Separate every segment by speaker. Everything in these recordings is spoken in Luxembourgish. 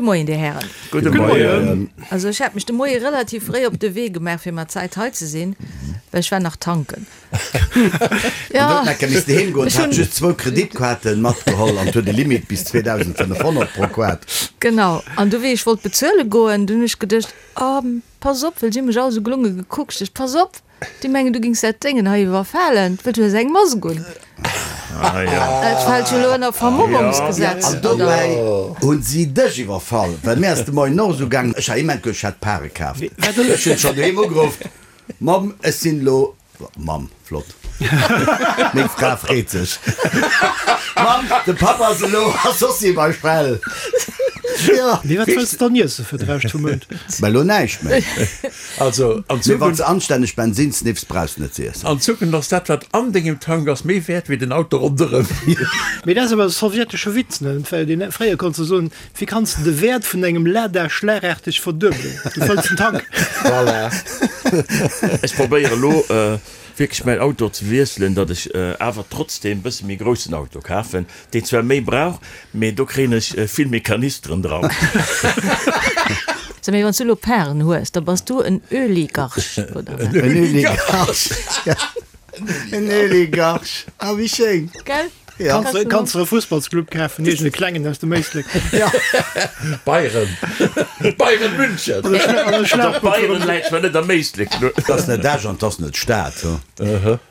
Speaker 1: Gudde Moien, Dir Hären.
Speaker 2: Gudde Moien.
Speaker 1: Also ech hat mech de Moie relativ fréi op de Wee gemaach, fir mat Zäit hei ze sinn, well ech war nach tanken.
Speaker 3: Ja. An huet nach missten heem goen, hat just zwou Kreditkaarten matgeholl an huet e Limit bis 2.500 pro Kaart.
Speaker 1: Genau. An du wéi ech wollt bezuele goen, du hunn ech geduecht, oh pass op, well si hu mech all esou gelunge gekuckt, ech pass op, déi mengen du gings dat Déngen hei iwwerfalen, well du hues eng Mask un. Dat fält jo elo ënner Vermummungsgesetz,
Speaker 3: An dobäi hunn si dech iwwerfall, well mir ass de Moien och esou gaangen, ech hat immens gutt, ech hat Pare kaaft, ech hunn schonn doheem ugeruff, Mamm, ech sinn elo Mamm, flott. Meng Fra freet sech. Mamm, de Papp ass elo a Sossi bei Shell.
Speaker 4: Jo. Mee wat wëlls de dann iesse fir de Rescht vum Mount?
Speaker 3: Mä elo näischt méi.
Speaker 2: Also, an
Speaker 3: Mee wann s de anstänneg Bensin sniffs, brauchs de net ze iessen.
Speaker 2: An Zukunft ass dat, wat an dengem Tank ass, méi wäert wéi den Auto ronderëm.
Speaker 4: Mee dat ass awer e sowjetesche Witz, ne? Well deen, fréier konns de soen, Wéi kanns de de Wäert vun engem Lada schlagaarteg verduebelen? Du fëlls den Tank.
Speaker 2: Voilà.
Speaker 5: Ech probéiere lo wierklech mäin Auto ze wiesselen, datt ech awer trotzdem bësse méi groussen Auto kafen, deen zwar méi brauch, mee do kréien ech vill méi Kanisteren dran.
Speaker 1: So, mee wann s du elo Paren hues, da bass du en Öligarch, oder
Speaker 3: wat? En Öligarch, ja. En Öligarch, ah wéi schéin.
Speaker 1: Gell?
Speaker 4: Ja. Kanns, kanns de e Fussballsclub kafen, iergend e klengen aus dem Éislek.
Speaker 3: Ja.
Speaker 2: Bayern. Bayern München.
Speaker 4: An e Schla- an e
Speaker 5: Also
Speaker 4: Schlagbuch
Speaker 5: Bayern läit zwar net am Éislek.
Speaker 3: Et ass net Esch an et ass net d'Stad.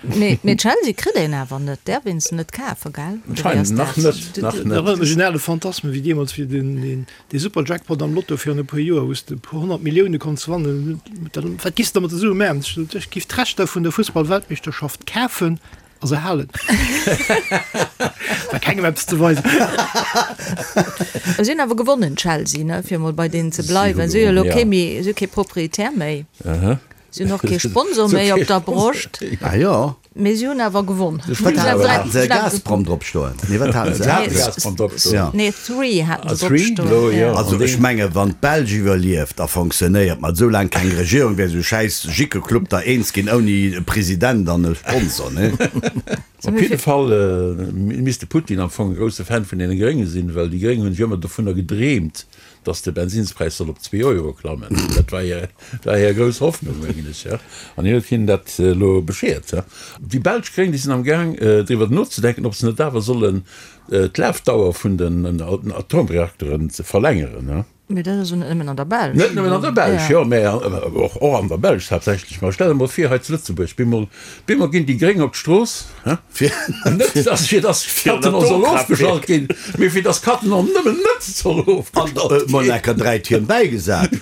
Speaker 1: Mee, mee Chelsea kritt een awer net, däerf een se net kafen, gell? Oder wéi ass
Speaker 2: Anscheinend nach
Speaker 1: dat?
Speaker 2: net, nach
Speaker 4: Dat
Speaker 2: net.
Speaker 4: erënnert mech un ale Phantasmen, wéi deemools, wéi den, den, dee Super-Jackpot am Lotto virun e puer Joer, wou s de e puer 100 Millioune konns wannen. Dann, wat giss de mat de Sue maachen? Ech sot, ech giff d'Rechter vun der Fussball-Weltmeeschterschaft kafen a se halen. War kengem eppes ze weisen.
Speaker 1: Si hunn awer gewonnen, Chelsea, ne, fir emol bei deenen ze bleiwen. Si hu jo elo kee méi, si hu kee Proprietär méi. Si hunn och kee Sponsor méi op der Broscht.
Speaker 3: Ah jo.
Speaker 1: Mee si hunn awer gewonn.
Speaker 3: Wat haten se? Gazprom drop stoen? Nee, wat haten se?
Speaker 2: Se haten Gazprom drop stoen.
Speaker 1: Nee, Three haten se drop stoen.
Speaker 3: Also ech menge wann d'Belsch iwwerlieft a fonctionnéiert, mat esou laang keng Regierung, wär esou schäiss Jickeclub da eens ginn ouni e President an e Sponsor, nee?
Speaker 2: Op jidde Fall misst de Putin am Fong e grousse Fan vun deene Grénge sinn, well déi Gréng hunn sech ëmmer dovunner gedreemt, datt de Bensinnspräis soll op zwee Euro klammen. Dat war hir, war hir grouss Hoffnung, mengen ech, jo. An hien huet hinnen dat elo bescheert, jo. Déi belsch Gréng, déi sinn am Gaang driwwer nozedenken, ob se net awer sollen d'Lafdauer vun den Atomreakteren ze verlängeren.
Speaker 1: Mee dat ass jo net nëmmen an der Belsch.
Speaker 2: Net nëmmen an der Belsch, jo, mä och an der Belsch haaptsächlech. Mä stell der mol vir, hei zu Lëtzebuerg, bemol, bemol ginn déi Gréng op d'Strooss,
Speaker 3: Fir
Speaker 2: net, dass, fir dass Cattenom soll ofgeschalt ginn, mee fir dass Cattenom nëmmen net soll ofgeschalt ginn.
Speaker 3: Mol enker 3 Tierm bäigesat.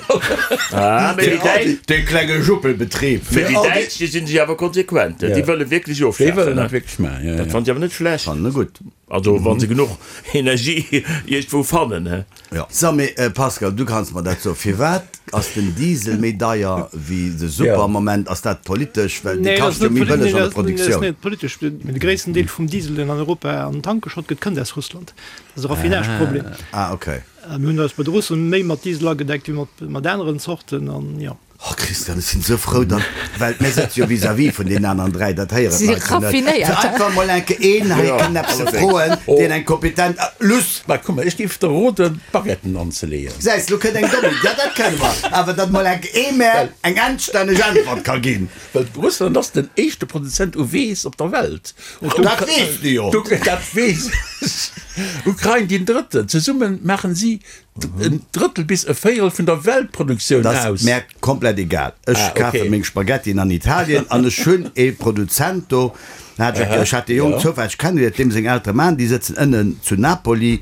Speaker 5: Ah, mee déi Däitsch.
Speaker 3: Dee klenge Juppelbetrib.
Speaker 5: Mee déi Däitsch, déi sinn sech awer konsequent, déi wëlle wierklech ofschafen.
Speaker 2: Déi wëllen dat wierklech maachen, jo, jo.
Speaker 5: Dat fannen ech awer net schlecht.
Speaker 3: Fannen e gutt.
Speaker 5: Also wa se genuch Energie iergendwou fannen, he.
Speaker 3: Jo. So, mee Pascal, du kanns mer dat soen, firwat ass den Diesel méi deier wéi de Super am Moment? Ass dat politesch? Well dee kascht jo méi bëlleg an der
Speaker 4: Nee, dat ass
Speaker 3: Produktioun.
Speaker 4: net politesch. Mee de gréissten Deel vum Diesel, deen an Europa an den Tank geschott gëtt, kënnt aus Russland. Dat ass e Raffinageproblem.
Speaker 3: Ah, okay.
Speaker 4: Mir hunn eis bei de Russen méi mat Diesel agedeckt wéi mat aneren Zorten an jo.
Speaker 3: Oh Christian, ech sinn esou frou, datt, well mir sëtze jo vis-à-vis vun deenen aneren 3, dat héieren
Speaker 1: Si
Speaker 3: d'Leit jo net, fir
Speaker 1: raffinéiert.
Speaker 3: einfach mol enke een hei kënnen eppes ze froen, deen eng kompetent, Luss!
Speaker 2: Mä komm, ech géif der roden, d'Baguetten anzeleeën.
Speaker 3: Gesäis, lo kënnt eng domm Iddi, ja dat kënne mer, awer datt mol enke ee mär eng anstänneg Äntwert ka ginn.
Speaker 2: Well Russland ass den éischte Produzent u Weess op der Welt.
Speaker 3: Dat weess de jo!
Speaker 2: Dat weess ech. Ukrain deen drëtten. Zesumme maachen si En Drëttel bis e Véierel vun der Weltproduktioun
Speaker 3: aus. Dat ass mär komplett egal. Ech kafe meng Spaghettien an Italien an ech hunn ee Produzent do, ech hat dee Jong zoufälleg kennegeléiert, deem seng Eltere maachen, déi sëtzen ënnen zu Napoli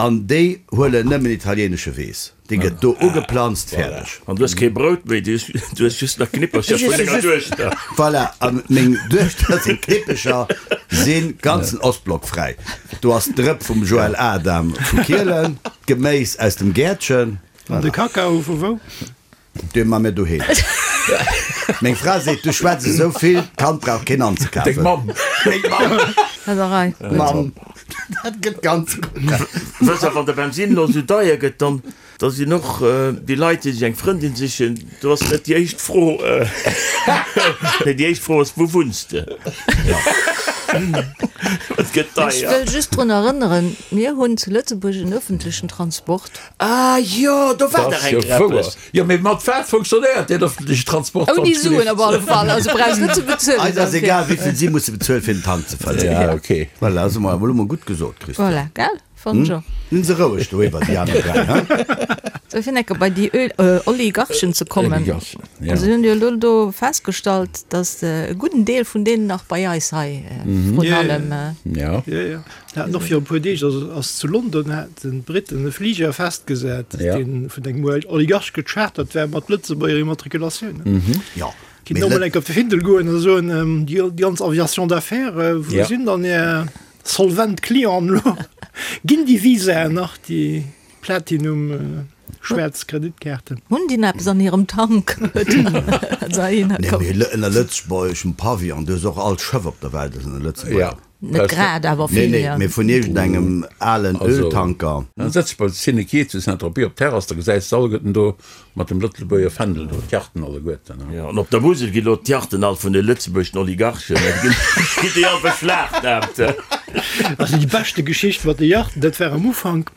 Speaker 3: an déi huelen nëmmen italienesche Weess. Dee gëtt do ugeplanzt, fäerdeg.
Speaker 5: An du hues kee Brout méi, du hues just nach Knippercher vun denger Duechter.
Speaker 3: Voilà, a meng Duechter seng Knippecher si ganzen Ostblock fräi. Do ass d'Drëpp vum Joël Adam vu Kielen, d'Geméis aus dem Gäertchen.
Speaker 4: An de Kakao vu wou?
Speaker 3: Dee ma mir doheem. Meng Fra seet, du schwätz esou vill, d'Kand brauch keen anzekafen.
Speaker 2: Deng Mamm.
Speaker 3: Meng Mamm.
Speaker 1: Dat a Rei.
Speaker 3: Mamm, dat gëtt ganz gutt.
Speaker 5: Wëss a wann de Bensin elo esou deier gëtt, dann Da sinn och déi Leit, déi sech eng Frëndin sichen, do ass net déi éischt Fro, nee, déi éischt Fro ass, Wou wunns de? Et gëtt
Speaker 1: Ech
Speaker 5: deier.
Speaker 1: wëll just drun erënneren, mir hunn zu Lëtzebuerg en öffentlechen Transport.
Speaker 5: Ah jo, do war
Speaker 2: Dat
Speaker 5: dach
Speaker 2: ass jo
Speaker 5: eng
Speaker 2: wouer.
Speaker 5: eppes.
Speaker 2: Jo, mee mat wat funktionéiert deen öffentleche Transport, wann
Speaker 1: Ouni
Speaker 2: et
Speaker 1: Suen op
Speaker 2: gelift?
Speaker 1: alle Fall, also brauchs net ze bezuelen
Speaker 3: Eis ass
Speaker 1: dofir.
Speaker 3: egal, wéi vill si musse bezuelen, fir den Tank ze fëllen.
Speaker 2: Ja, okay.
Speaker 3: Voilà, ass emol emol gutt gesot, Christian.
Speaker 1: Voilà, gell? Fannen ech och.
Speaker 3: Sinn se roueg do iwwer, déi aner 3, hein?
Speaker 1: Sou, fir enke bei déi Oligarchen ze kommen.
Speaker 2: Oligarchen, ja.
Speaker 1: Also, hunn jo elo do festgestallt, datt e gudden Deel vun deenen nach bei eis hei vrun allem.
Speaker 2: Ja.
Speaker 4: Jo, jo. Haten och viru e puer Deeg, also ass zu London, haten d'Briten e Fliger festgesat, dee vun engem Oligarch gechartert war mat Lëtzebuerger Immatrikulatioun.
Speaker 3: Jo.
Speaker 4: Kinnt och mol enke op de Findel goen a soen, déi ganz Aviation d'affaires, wou sinn dann är Solvent Clienten elo? Ginn déi Visaen nach, déi Platinum schwaarz Kreditkaarten?
Speaker 1: Hunn déi nach eppes an hirem Tank?
Speaker 3: Nee, mee ënner lëtzebuergeschem Pavillon, du hues och all Schëff op der Welt ass ënner Lëtzebuerg.
Speaker 1: Net grad, awer
Speaker 3: Nee,
Speaker 1: vill,
Speaker 3: nee,
Speaker 1: jo.
Speaker 3: mee vun iergendengem alen Öltanker.
Speaker 2: Dann setz dech bei Cinequai zu Saint-Tropez op d'Terrass, da gesäis de alleguerten do mat dem Lëtzebuerger Fändel do, d'Yachten alleguerten.
Speaker 5: Jo, an op der Musel ginn elo d'Yachten all vun de lëtzebuergeschen Oligarchen, ginn déi all beschlagnahmt.
Speaker 4: Also déi beschte Geschicht mat de Yachten, dat war am Ufank,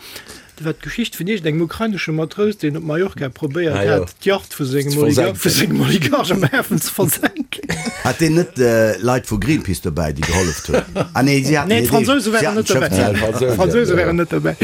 Speaker 4: Dat war d'Geschicht vun iergendengem ukrainesche Matrous, deen op Mallorca probéiert
Speaker 2: Ah, jo.
Speaker 4: hat, d'Yacht vu sengem
Speaker 2: Ze
Speaker 4: Oligar
Speaker 2: versenken.
Speaker 4: vu sengem Oligarch am Hafen ze versenken.
Speaker 3: Hat deen net Leit vu Greenpeace dobäi, déi geholleft hunn? Ah nee, si haten
Speaker 4: Nee,
Speaker 3: hiert
Speaker 4: d'Fransouse
Speaker 3: eegent, si
Speaker 4: waren
Speaker 3: haten
Speaker 4: net
Speaker 3: d'Schëff
Speaker 4: dobäi.
Speaker 3: selwer.
Speaker 2: D'Fransouse,
Speaker 4: D'Fransouse
Speaker 2: ja.
Speaker 4: waren net dobäi.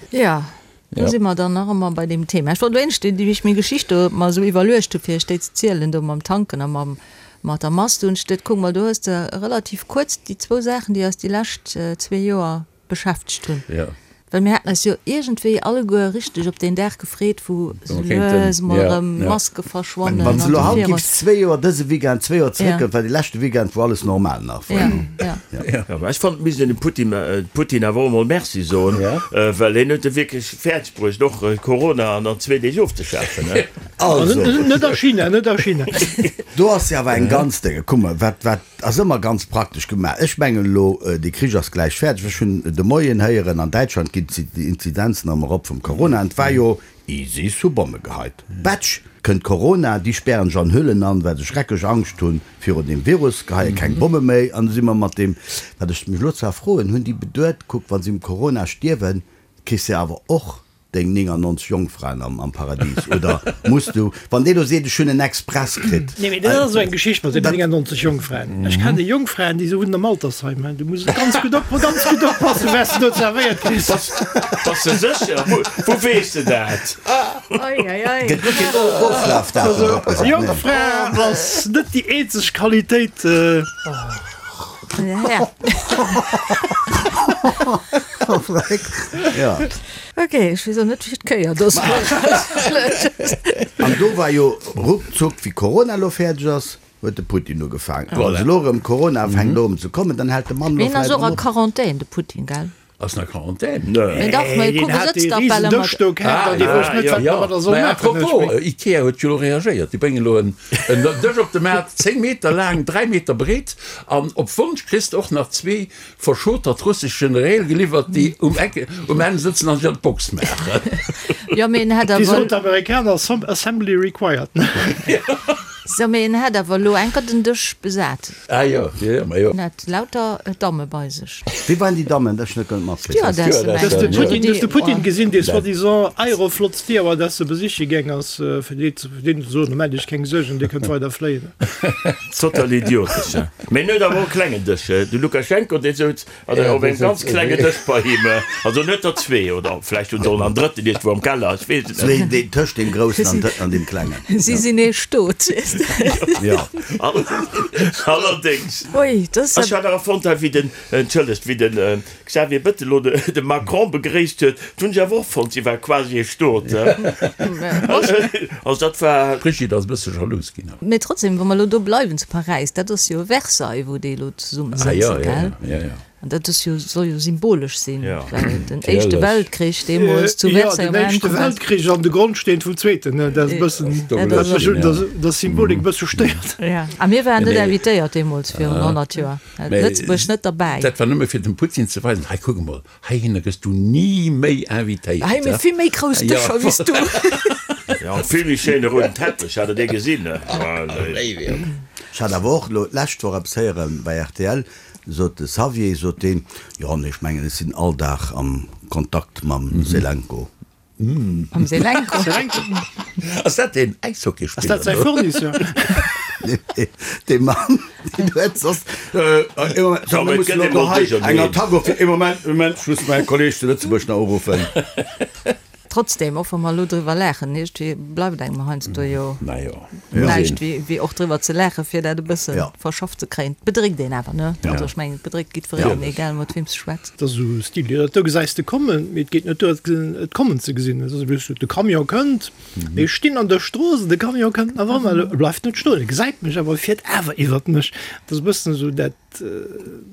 Speaker 1: Ja, do si mer dann nach ëmmer bei deem Thema. Ech wollt wéinst, wéi ech meng Geschicht do mer esou iwwerluecht hu fir iech déi ze zielen, do mam Tanken a mam, mat der Mask, do hunn ech geduet, kuck mol, do hues de relativ kuerz déi zwou Saachen, déi eis déi lescht zwee Joer beschäftegt hunn.
Speaker 2: Ja.
Speaker 1: Well mir haten eis jo iergendwéi alleguer richteg op deen Dag gefreet, wou sou lues mol erëm Maske verschwannen.
Speaker 3: Wann s de elo haut giffs zwee Joer, dëse Weekend zwee Joer zeréckgoen, war dee leschte Weekend, wou alles normal nach war.
Speaker 1: Ja, ja.
Speaker 5: Ja, mä ech fannen, et misst een dem Putin, Putin awer och emol Merci soen, well hien huet et wierklech fäerdeg bruecht, och Corona an zwee Deeg ofzeschafen.
Speaker 3: Also.
Speaker 4: Net a China, net a China.
Speaker 3: Do ass jo awer eng ganz Dénge. Kuck mol, wat, wat. Ass ëmmer ganz praktesch gemaach. Ech mengen elo, dee Krich ass gläich fäerdeg. Ech hunn de Moien héieren, an Däitschland ginn d'Inzidenzen erëm erop vum Corona. An et war jo, ISIS hu Bomme geheit. Batsch, kënnt Corona, déi spären sech an Hüllen an, well se schrecklech Angscht hu virun deem Virus, geheie keng Bomme méi. An du si mer mat deem, wat ech mech elo zwar froen, hunn déi beduet, kuck, wa si um Corona stierwen, kriss de awer och Deng 99 Jongfraen am Paradis, oder muss du, wann dee lo seet, ech hunn en Express kritt.
Speaker 4: Nee, mee dat ass esou eng Geschicht mat den 99 Jongfraen. Ech kennen Jongfraen, déi wunnen am Altersheim. Du muss ganz gutt op, ganz gutt oppassen, wat s de do zerwéiert kriss.
Speaker 5: Bass de sécher? Wou weess de dat?
Speaker 1: Oi, oi, oi.
Speaker 3: Gëtt net keen Oflafdatum drop gesat, nee.
Speaker 4: Jongfra ass net déi eenzeg Qualitéit.
Speaker 1: Ja.
Speaker 3: Ja.
Speaker 1: Ok, ech weess och net wéi d'Kéier do ass.
Speaker 3: An do war jo ruckzuck, wéi Corona elo fäerdeg ass, huet de Putin ugefaangen. Wann elo erëm Corona fänkt elo erëm ze kommen, dann hält de Mann elo
Speaker 1: Hien ass
Speaker 3: vläicht
Speaker 1: och
Speaker 3: erëm
Speaker 1: a
Speaker 3: op.
Speaker 1: Quarantän, de Putin, gell?
Speaker 2: Ass en a Quarantän?
Speaker 1: Nee, dach, mä
Speaker 4: Deen
Speaker 1: kuck, e
Speaker 4: hat
Speaker 1: sëtzt
Speaker 4: dee
Speaker 1: dach bal
Speaker 4: risen
Speaker 1: ëmmer.
Speaker 4: Dësch do kaaft an dee wousst net, wat en domadder soll
Speaker 2: Mä
Speaker 4: maachen.
Speaker 2: apropos, Ikea huet jo elo reagéiert. Déi bréngen elo en Dësch op de Maart, 10 Meter laang, 3 Meter breet an op Wonsch kriss de och nach zwee Verschotert russesch Generéil geliwwert, déi um Eck um Enn sëtzen an sech an d'Box maachen.
Speaker 1: Jo, mee en hätt
Speaker 4: Wéi
Speaker 1: awer.
Speaker 4: soen d'Amerikaner, Assembly required.
Speaker 1: So, mee en hätt awer elo enker den Dësch besat.
Speaker 2: Ah jo, jo, jo, ma jo.
Speaker 1: En hat lauter Damme bei sech.
Speaker 3: Wie waren déi Dammen? Dat ech net ganz matkritt.
Speaker 1: Stewardessen, mengen
Speaker 4: Hues de
Speaker 1: ech.
Speaker 4: Putin, hues de Putin gesinn, dee soi-disant Aeroflot Stewardesse besiche gaang ass, fir déi ze, fir deenen ze soen, Maacht Iech keng Suergen, Dir kënnt weider fléien.
Speaker 5: Total idiotesch, he? Mee en huet awer och e klengen Dësch, he? De Lukaschenko, dee souz op engem ganz klengen Dësch bei him. Also en huet der zwee, oder vläicht hunn se och nach en drëtten iergendwou am Keller, ech weess et net.
Speaker 3: Zwee, deen tëscht deem groussen an deem klengen.
Speaker 1: Si sinn ee Stot, weess de.
Speaker 3: Jo.
Speaker 5: Allerdéngs.
Speaker 1: Ui, dat ass.
Speaker 5: Ech hat awer fonnt, hei wéi den, entschëllegt, wéi den Xavier Bettel elo de Macron begréisst huet, dat hunn ech awer och fonnt, si war quasi e Stot. Also dat war.
Speaker 2: D'Brigitte ass e bësse jalous ginn.
Speaker 1: Mee trotzdem, wa mer elo do bleiwen zu Paräis, dat ass jo Versailles, wou déi elo zesumme sëtzen, gell? An dat ass jo, soll jo symbolesch sinn, well den Éischte Weltkrich deemools zu Versailles
Speaker 4: Jo, den Éischte Weltkrich an de Grondsteen vum Zweeten, dat ass e bëssen, dat mech un der Symbolik e bësse stéiert.
Speaker 1: Jo, a mir waren net invitéiert deemools virun 100 Joer, Lëtzebuerg net derbäi.
Speaker 2: Dat war nëmme fir dem Putin ze weisen, hei kuck emol, Heihinner gëss du ni méi invitéiert.
Speaker 1: Hei mir vill méi grouss Dëscher wéi s du.
Speaker 5: Ja, an vill méi schéine rouden Teppech, hat der dee gesinn?
Speaker 3: Ech hat awer och elo d'lescht Woch eppes héieren bei rtl. Sot de Xavier, sot deen, jo, nee, ech mengen, ech sinn all Dag am Kontakt mam Selenko.
Speaker 1: Mam Selenko?
Speaker 2: Ass dat deen Äishockeyspiller?
Speaker 4: Ass dat säi Fournisseur?
Speaker 3: Nee, dee Mann, deen huet soss, ee Moment, so, mir mussen elo hei eng Attack of, ee Moment, Moment, ech muss mäi Kolleeg zu Lëtzebuerg nach uruffen.
Speaker 1: Trotzdem, och wa mer elo driwwer laachen, iergendwéi bleift engem heiansdo jo näischt wéi och driwwer ze laachen, fir dat e bësse verschafft ze kréien. Et bedréckt een awer, ne? Also ech mengen, et bedréckt jiddwereen, egal mat weem s de schwätz.
Speaker 4: Et ass esou Stil, jo, dat do gesäis de kommen, mee et geet net duer, et kommen ze gesinn. Et ass just, de Camion kënnt, mee ech stinn an der Strooss an de Camion kënnt nach ëmmer, e bleift net stoen, e gesäit mech awer, e fiert awer iwwert mech. Et ass e bëssen esou dat.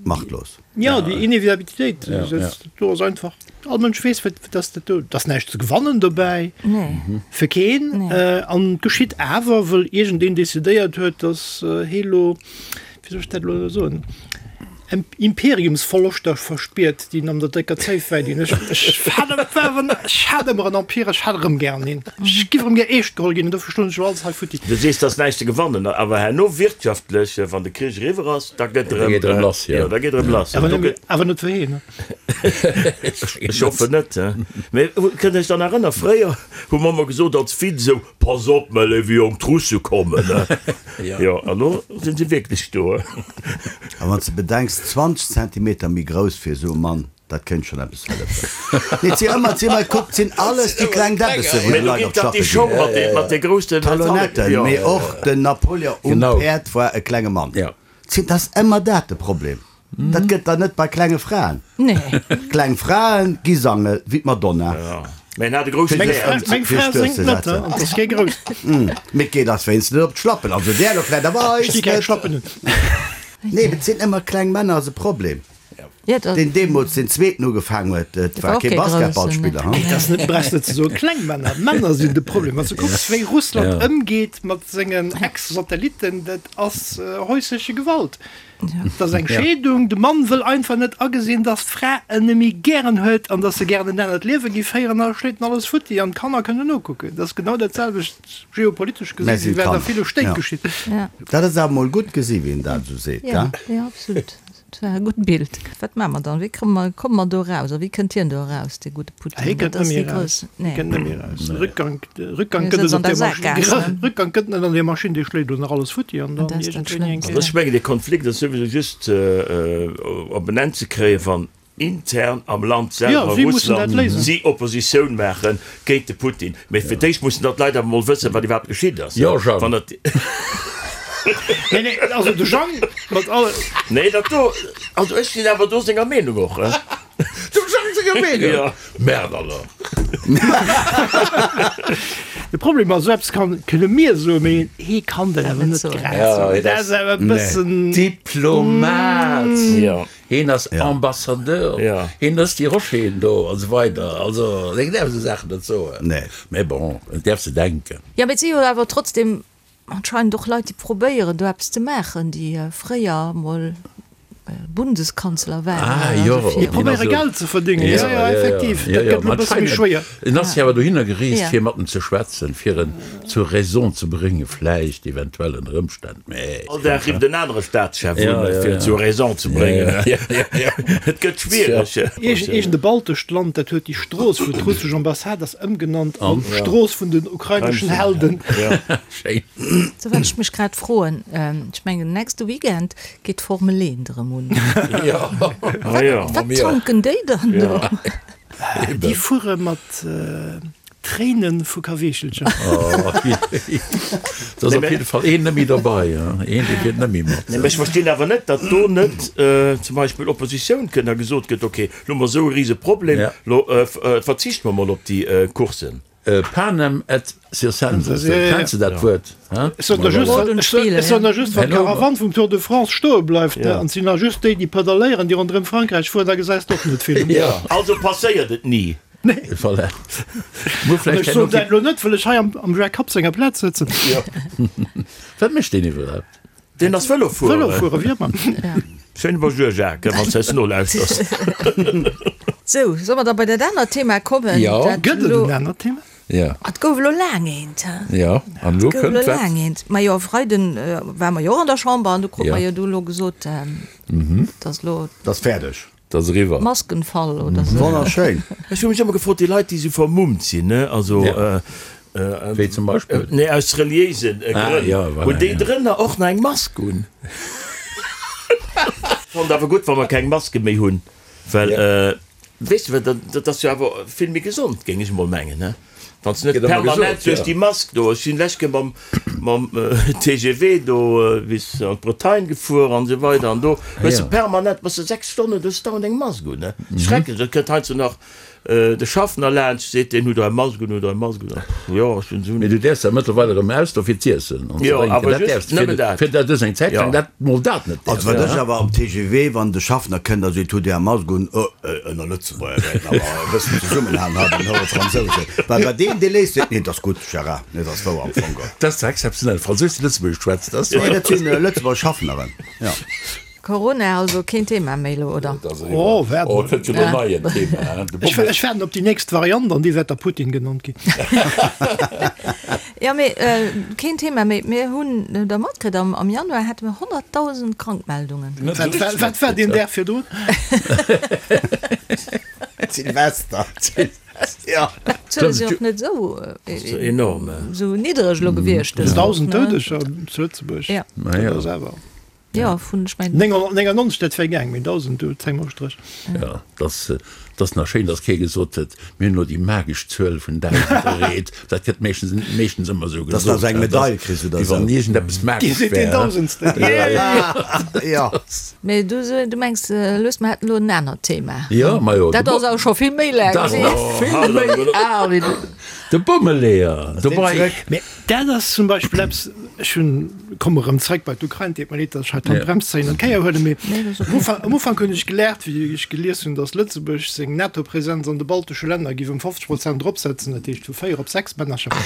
Speaker 3: Machtlos.
Speaker 4: Ja, déi Inevitabilitéit, do ass einfach, all Mënsch weess, wat dass dat do, dass näischt ze gewannen dobäi, fir keen. An et geschitt awer, wëll iergendeen decidéiert huet, dass hee lo, wéi soll ech dat elo soen, Imperiumsverloschter verspiert, déi en an der décker Zéif wäidinn. Ech, ech hat ech hat ëmmer en Empire, ech hat erëm gären een. Ech giff erëm gär eescht geholl ginn, an dofir stoen ech elo alles hei futti.
Speaker 5: Du sees, et ass näischt ze gewannen, awer herno wirtschaftlech, wann de Krich eriwwer ass, da gëtt erëm,
Speaker 2: Da geet erëm lass, jo.
Speaker 5: Da geet erëm lass.
Speaker 4: Awer net, awer net fir heen.
Speaker 5: Ech hoffen net. Mee kënnt Iech dann erënnern, fréier hu mer ëmmer gesot als Witz esou, Pass op, mäi léiwe Jong, d'Russe kommen. Jo, an elo sinn se wierklech do.
Speaker 3: A wann s de bedenks, 20 Zentimeter méi grouss fir esou e Mann, dat kéint schonn eppes hëllefen. Nee, et si ëmmer, et si ëmmer, kuck, et sinn alles déi kleng Däbbesse wou
Speaker 5: Mee
Speaker 3: déi
Speaker 5: elo
Speaker 3: Leit
Speaker 5: geet
Speaker 3: op
Speaker 5: dach déi
Speaker 3: d'Schappe
Speaker 5: Show
Speaker 3: ginn.
Speaker 5: mat de, mat de groussen
Speaker 3: Talonnetten, mee och den Napoleon um Päerd war e klenge Mann. Et ass ëmmer dat de Problem. Dat gëtt der net bei klenge Fraen.
Speaker 1: Nee.
Speaker 3: Kleng Fraen gi sange wéi d'Madonna.
Speaker 5: Mä en hat e grousse
Speaker 4: Meng
Speaker 5: Häerz.
Speaker 4: Fra, meng Fra séngt net, an ass kee grouss.
Speaker 3: Mee et geet eis wéinst net op d'Schlappen. Also där elo vläit, awer
Speaker 4: Ech
Speaker 3: eis
Speaker 4: sti keng
Speaker 3: net.
Speaker 4: Schlappen un.
Speaker 3: Nee, et sinn ëmmer kleng Männer ass e Problem.
Speaker 1: Ja, dat.
Speaker 3: Deen deemools deen zweeten ugefaang huet, et war
Speaker 1: war och
Speaker 3: kee
Speaker 1: kee Groussen,
Speaker 3: Basketballspiller,
Speaker 1: ne?
Speaker 3: hm?
Speaker 4: Et ass net, brauchs net ze soen, kleng Männer. Männer sinn de Problem. Wann s de kucks, wéi Russland ëmgeet mat sengen Ex-Satellitten, dat ass häusleche Gewalt. Dat ass eng Scheedung. De Mann wëll einfach net agesinn, dass d'Fra en nemme gären huet an dass se gären en anert Liewe géif féieren a schléit en alles futti an d'Kanner kënnen nokucken. Dat ass genau dat selwecht geopolitesch
Speaker 3: Mä
Speaker 4: gesinn,
Speaker 3: sinn
Speaker 4: wéi wat a
Speaker 3: d'Kanner,
Speaker 4: ville Stéit
Speaker 3: ja.
Speaker 4: geschitt.
Speaker 3: Dat ass awer mol gutt gesi wéi en dat esou seet,
Speaker 1: Ja,
Speaker 3: gell?
Speaker 1: ja, absolut. Dat war e gutt Bild. Wat maache mer dann? Wéi komme mer, komme mer do eraus? A wéi kënnt hien do eraus, dee gudde Putin?
Speaker 4: Hie
Speaker 1: Dat
Speaker 4: kënnt net
Speaker 1: ass
Speaker 4: méi
Speaker 1: déi
Speaker 4: eraus.
Speaker 1: grouss,
Speaker 4: Hie
Speaker 1: nee.
Speaker 4: kënnt net méi eraus. Rückgang, Rückgang
Speaker 1: Hie
Speaker 4: gëtt
Speaker 1: sëtzt
Speaker 4: et
Speaker 1: an
Speaker 4: op
Speaker 1: der
Speaker 4: där Maschinn.
Speaker 1: Saakgaass, ne?
Speaker 4: Rückgang gëtt net an där Maschinn, déi schléit elo nach alles futti an
Speaker 1: An
Speaker 4: dann
Speaker 1: dat ass dat
Speaker 4: iergendwéini eng
Speaker 1: Schlëmmst.
Speaker 5: Also ech
Speaker 4: Kéier.
Speaker 5: mengen, dee Konflikt ass souwisou just op en Enn ze kréien, wann intern am Land
Speaker 4: Jo,
Speaker 5: selwer,
Speaker 4: si mussen dat
Speaker 5: Russland,
Speaker 4: léisen.
Speaker 5: si Oppositioun maache géint de Putin. Mee fir d'éischt mussen da d'Leit awer mol wëssen, wat iwwerhaapt geschitt ass.
Speaker 2: Jo, Jang.
Speaker 5: Wann dat.
Speaker 4: Nee, nee, also de Jang mat alle.
Speaker 5: Nee, dat do, also ech sinn awer do senger Meenung och.
Speaker 2: Dem Jang senger Meenung?
Speaker 5: Jo.
Speaker 2: Merde alors!
Speaker 4: De Problem ass, esou eppes kann, kënne mir soen, mee hee kann dat awer net grad soen. Dat ass awer e bëssen.
Speaker 2: Diplomat!
Speaker 5: Jo.
Speaker 2: Heen ass Ambassadeur, heen ass déi Rocheren do an esou weider. Also hien däerf esou Saachen net soen. Mä bon, en däerf se denken.
Speaker 1: Jo, mee et si jo awer trotzdem anscheinend och Leit, déi probéieren do eppes ze maachen, déi fréier mol Bundeskanzler waren.
Speaker 2: Ah jo,
Speaker 4: Déi probéiere Geld ze verdéngen, jo, jo, effektiv. Dat gëtt elo e bësse méi schwéier.
Speaker 2: En ass jo awer dohinner gereest, fir mat em ze schwätzen, fir en zur Raison ze bréngen, vläicht, eventuell ënner Ëmstänn.
Speaker 5: All Dag rifft en anere Staatschef un, fir en zur Raison ze bréngen. Et gëtt schwiereg.
Speaker 4: Iergend e baltescht Land, dat huet déi Strooss, wou d'russesch Ambassade ass, ëmgenannt an Strooss vun den ukraineschen Helden.
Speaker 2: Schéin.
Speaker 1: Sou, wat ech mech grad froen, ech mengen nächste Weekend geet d'Formel 1 erëm un. Wat tanken déi dann do?
Speaker 4: Déi fuere mat Tréinen vu Kaweechelcher.
Speaker 2: Do ass op jidde Fall een net méi derbei, een dee fiert net méi mat.
Speaker 5: Nee, mä ech verstinn awer net, datt do net zum Beispill Oppositioun kënnt a gesot gëtt, okay, lo hu mer esou e rise Problem, lo verzichte mer mol op déi Coursen.
Speaker 2: Panem et circenses, kenns de dat Wuert?
Speaker 4: Ech soen der just, ech soen der just, wann d'Karawann vum Tour de France stoe bleift, an et sinn nach just déi, déi pedaléieren, déi ronderëm Frankräich fueren, da gesäis de och net vill.
Speaker 5: Also passéiert et ni.
Speaker 2: Voilà. Muer
Speaker 4: An
Speaker 2: vläicht
Speaker 4: ech soen dat elo net, wëll ech hei am am Jacques Kapp senger Plaz sëtzen.
Speaker 2: Wat mécht deen iwwerhaapt?
Speaker 5: Deen ass Vëlo fueren.
Speaker 4: Vëlo fuere wier mer.
Speaker 5: Schéine Bonjour Jacques, wann s de eis nolauschters.
Speaker 1: Sou, solle mer da bei dat anert Thema kommen?
Speaker 2: Jo.
Speaker 1: Dat
Speaker 4: Gëtt et
Speaker 1: elo
Speaker 4: en anert Thema?
Speaker 2: Ja.
Speaker 1: Et gouf elo laang eent, he?
Speaker 2: Ja, an elo
Speaker 1: Et gouf
Speaker 2: kënnt
Speaker 1: elo
Speaker 2: wat?
Speaker 1: laang eent. Majo, e Freiden ware mer jo och an der Chamber an du krut
Speaker 2: Ja.
Speaker 1: mer jo du elo gesot, dass elo.
Speaker 3: 't ass fäerdeg.
Speaker 2: 't ass eriwwer.
Speaker 1: Maskenfall oder sou.
Speaker 3: Wonnerschéin.
Speaker 5: Ech hu mech ëmmer gefrot, déi Leit, déi esou vermummt sinn, ne, also.
Speaker 2: Ja. Wéi zum Beispill?
Speaker 5: Nee, aus reliéisen
Speaker 2: Ah,
Speaker 5: Grënn.
Speaker 2: ja, voilà,
Speaker 5: Hunn déi
Speaker 2: ja.
Speaker 5: drënner och nach eng Mask un? Fonnt awer gutt, wa mer keng Maske méi hunn, well, weess de, well dat ass jo awer vill méi gesond, géing ech emol mengen, ne? Wann s de net
Speaker 2: Gëtt ëmmer
Speaker 5: permanent
Speaker 2: gesot,
Speaker 5: duerch
Speaker 2: ja.
Speaker 5: déi Mask do, ech sinn lech Kéier mam, mam TGV do bis an d'Bretagne gefuer an esou weider an do hues de
Speaker 2: Ja.
Speaker 5: permanent, bass de 6 Stonnen, du hues dauernd eng Mask un, ne? Schrecklech, dat kënnt heiansdo nach De Schaffner laanscht, seet deen, Hutt Der eng Mask un, hutt Der eng Mask un? Jo, ech hunn se un.
Speaker 2: Mee du däerfs dat mëttlerweil erëm aus do fir z'iessen an ze
Speaker 5: Jo,
Speaker 2: drénken.
Speaker 5: awer
Speaker 2: Dat
Speaker 5: just
Speaker 2: däerfs de
Speaker 5: nëmmen dat.
Speaker 2: fir dat ass eng Zäit laang
Speaker 5: Jo.
Speaker 2: dat mol dat net
Speaker 3: Also
Speaker 2: däerfs.
Speaker 3: wat ech awer am TGV, wann de Schaffner kënnt a seet, Hutt Dir eng Mask un? Oh, ënner Lëtzebuerger wäerten awer e bëssen zesummenhalen hei bei den hohe Fransousen. Well bei deem, dee léisst, seet, Nee, 't ass gutt, Gérard, nee, 't ass wouer am Fong.
Speaker 2: Dat ass zwar exzeptionell, Fransous, déi Lëtzebuergesch schwätzt, dat ass
Speaker 3: Nee, dat sinn Lëtzebuerger Schaffneren, jo.
Speaker 1: Corona also keen Thema méi elo, oder?
Speaker 4: Oh, waart
Speaker 2: Oh,
Speaker 4: mol.
Speaker 2: et kënnt jo lo nei en Thema, hein? De
Speaker 4: Ech,
Speaker 2: Bommel.
Speaker 4: ech waarden op déi nächst Variant an déi wäert da Putin genannt ginn.
Speaker 1: Jo, mee keen Thema méi. Mir hunn der matkritt, am, am Januar hate mir 100.000 Krankmeldungen.
Speaker 2: Net esou
Speaker 4: Wat war,
Speaker 2: richtig
Speaker 4: wat war deen
Speaker 2: matkritt,
Speaker 4: Dag virdrun?
Speaker 3: Silvester. Jo.
Speaker 1: D'Zuele sinn och net esou,
Speaker 5: Enorm.
Speaker 1: esou niddereg elo gewiescht dës Woch,
Speaker 4: 1.000
Speaker 1: ne?
Speaker 4: Doudeger zu Lëtzebuerg.
Speaker 1: Ja.
Speaker 2: Ma jo.
Speaker 4: Dat ass awer.
Speaker 1: Jo, vun, ech mengen.
Speaker 4: 999, dat wär gaang, mee 1.000, do zéie mer e Stréch.
Speaker 2: Jo, dass, dass nach schéin, dass kee gesot huet, mir hunn elo déi magesch Zuel vun 1.000 erreet. Dat gëtt meeschtens, meeschtens ëmmer esou
Speaker 3: Dass
Speaker 2: gesot,
Speaker 3: de eng Medail kriss oder
Speaker 2: wéi
Speaker 3: esou.
Speaker 2: wann iergendeppes
Speaker 4: Dir
Speaker 2: magesch
Speaker 4: sidd deen
Speaker 2: wär.
Speaker 4: Dausendsten.
Speaker 3: Jo.
Speaker 1: Mee du, du mengs, Lues, mer hätten elo en anert Thema.
Speaker 2: Jo, majo.
Speaker 1: Dat ass awer scho vill méi laang
Speaker 2: Dat ass
Speaker 1: hier.
Speaker 2: nach vill méi al wéi de Bommeleeër. Dobei.
Speaker 4: Mee dat ass zum Beispill eppes, ech hunn, komme erëm zréck bei d'Ukrain, deet mer leed, datt ech hei d'Handbrems zéien an d'Kéier huelen, mee am Ufank, am Ufank hunn ech geläert, wéi ech gelies hunn, datt Lëtzebuerg seng NATO-Presenz an de baltesche Länner géif ëm 50 Prozent eropsetzen, dat heescht vu 4 op 6 Männercher. An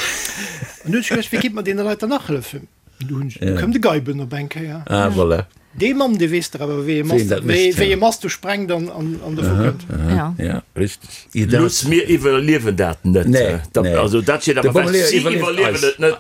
Speaker 4: du hunn ech geduecht, wéi kéint mer deene Leit dann nach hëllefen? Du hunn ech, du koum de Geiben op eng Kéier.
Speaker 2: Ah, voilà.
Speaker 4: Dee Mann, dee weess dach awer, wéi ee
Speaker 2: Wéi een
Speaker 4: Mast,
Speaker 2: dat
Speaker 4: wéi,
Speaker 2: mécht,
Speaker 4: wéi
Speaker 2: ja.
Speaker 4: ee Mast do sprengt an, an, an dovu kënnt.
Speaker 1: Ja.
Speaker 2: Ja, richteg.
Speaker 5: Looss, mir iwwerliewen dat net.
Speaker 2: Nee,
Speaker 5: Dat,
Speaker 2: nee.
Speaker 5: also dat steet
Speaker 2: De
Speaker 5: awer fest.
Speaker 2: Bommeleeër
Speaker 5: Si
Speaker 2: iwwerlieft
Speaker 5: iwwerliewen
Speaker 2: eis.
Speaker 5: et net.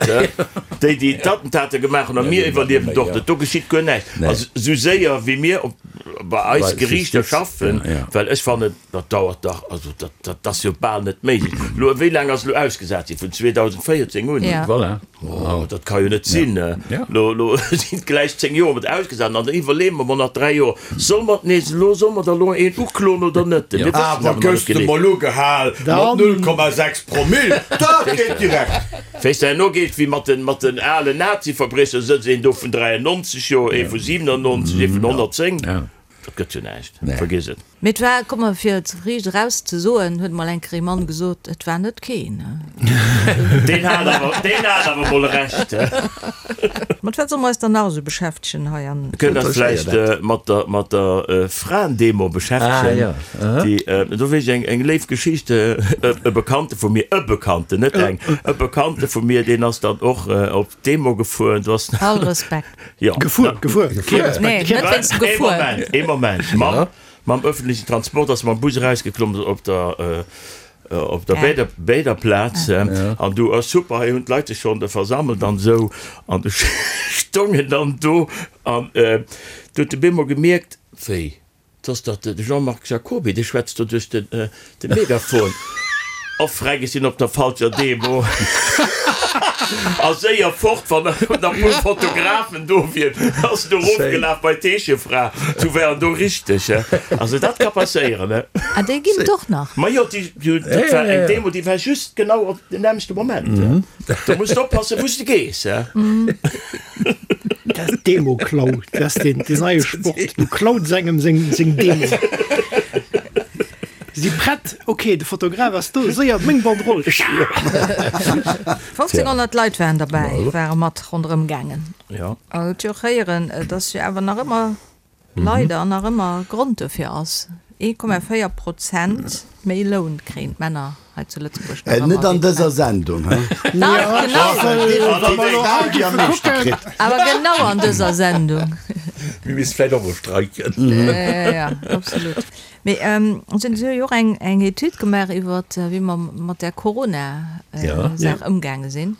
Speaker 5: Déi, déi d'Attentate gemaach hunn, a mir iwwerliewen et och net. Do geschitt guer näischt.
Speaker 2: Nee.
Speaker 5: Also esou séier wéi mir op, bei eis
Speaker 2: Bei
Speaker 5: Geriichter
Speaker 2: Justiz,
Speaker 5: schaffen,
Speaker 2: ja, ja.
Speaker 5: well ech fannen, dat dauert dach, also dat, dat ass jo bal net méiglech. Elo, wéi laang ass elo ausgesat ginn? Vun 2014 un?
Speaker 1: Ja.
Speaker 2: Voilà.
Speaker 5: Oh, dat ka jo net sinn.
Speaker 2: Ja.
Speaker 5: Lo, lo sinn et gläich 10 Joer mat ausgesat an dann iwwerleeë mer mol nach 3 Joer, solle mer nees elo, solle mer da lo een ukloen oder net? Mir wëssen
Speaker 3: Awer
Speaker 5: awer nach
Speaker 3: gëss
Speaker 5: net
Speaker 3: de
Speaker 5: genee.
Speaker 3: mol ugehal mat 0,6 Promill, dat geet direkt.
Speaker 5: Wéi s de herno geet, wéi mat den, mat den alen Nazi-Verbriecher, sëtzt een do vun 93 Joer, ee vu 97, ee vun 110.
Speaker 2: Ja.
Speaker 5: Dat gëtt jo näischt, vergiss et.
Speaker 1: Mee et war, komm mer fir et riicht eraus ze soen, huet mol eng Kéier ee Mann gesot, et war net keen.
Speaker 5: Deen hat awer, deen hat awer mol Recht.
Speaker 1: Mat wat solle mer eis dann nach esou beschäftegen hei an.
Speaker 5: Mir kënnen eis vläicht mat der, mat der Fraendemo beschäftegen.
Speaker 2: Ah, jo.
Speaker 5: Déi, do weess ech eng, eng léif Geschicht, e Bekannte vu mir, e Bekannten, net eng, e Bekannte vu mir, deen ass dann och op d'Demo gefuer, do ass.
Speaker 1: All Respekt.
Speaker 5: Jo.
Speaker 4: Gefuer, gefuer. Kee Respekt.
Speaker 1: Nee, net wéinst dem
Speaker 5: Ee
Speaker 1: Gefuer.
Speaker 5: Moment, ee Moment. Mam, mam öffentlichen Transport ass mam Bus erausgeklommen op der, op der Bäder, Bäderplaz. An du, oh super, hei hunn d'Leit sech schonn versammelt an esou. An du stongen dann do an du huet de bemol gemierkt, wéi, 't ass dach de Jean-Marc Jacoby, dee schwätzt do duerch de Megafon. Oh freck, ech sinn op der falscher Demo. A séier fort, wann nach e puer Fotografen do wieren, ass en do erofgelaf bei d'Heeschefra. Du war en do richteg. Also dat ka passéieren, he.
Speaker 1: Ah, déi ginn et och nach?
Speaker 5: Majo, déi, dat war eng Demo, déi war just genau op den nämmlechte Moment. Do muss de oppassen, wou s de gees, he.
Speaker 4: Dat Demo-Klau, dat ass deen neie Sport. Du klaus engem seng seng Demo. Si prett, ok, de Fotograf ass do, séier, meng Banderole.
Speaker 1: 1500 Leit waren derbäi, ware mat ronderëm gaangen.
Speaker 5: Jo.
Speaker 1: An et jo och héieren, dass jo awer nach ëmmer leider nach ëmmer Grond dofir ass, 1,4 Prozent méi Loun kréien d'Männer hei zu Lëtzebuerg nach ëmmer
Speaker 3: Net an
Speaker 1: wéi
Speaker 3: dëser
Speaker 1: d'Fraen.
Speaker 3: Sendung, he?
Speaker 1: Dach, genau!
Speaker 3: Awer
Speaker 1: Awer genau an dëser Sendung.
Speaker 2: Mir misste vläicht och mol streiken.
Speaker 1: Ja, absolut. Mee si hunn jo och eng eng Etüd gemaach iwwer wéi mer mat där Corona-Saach ëmgaange sinn.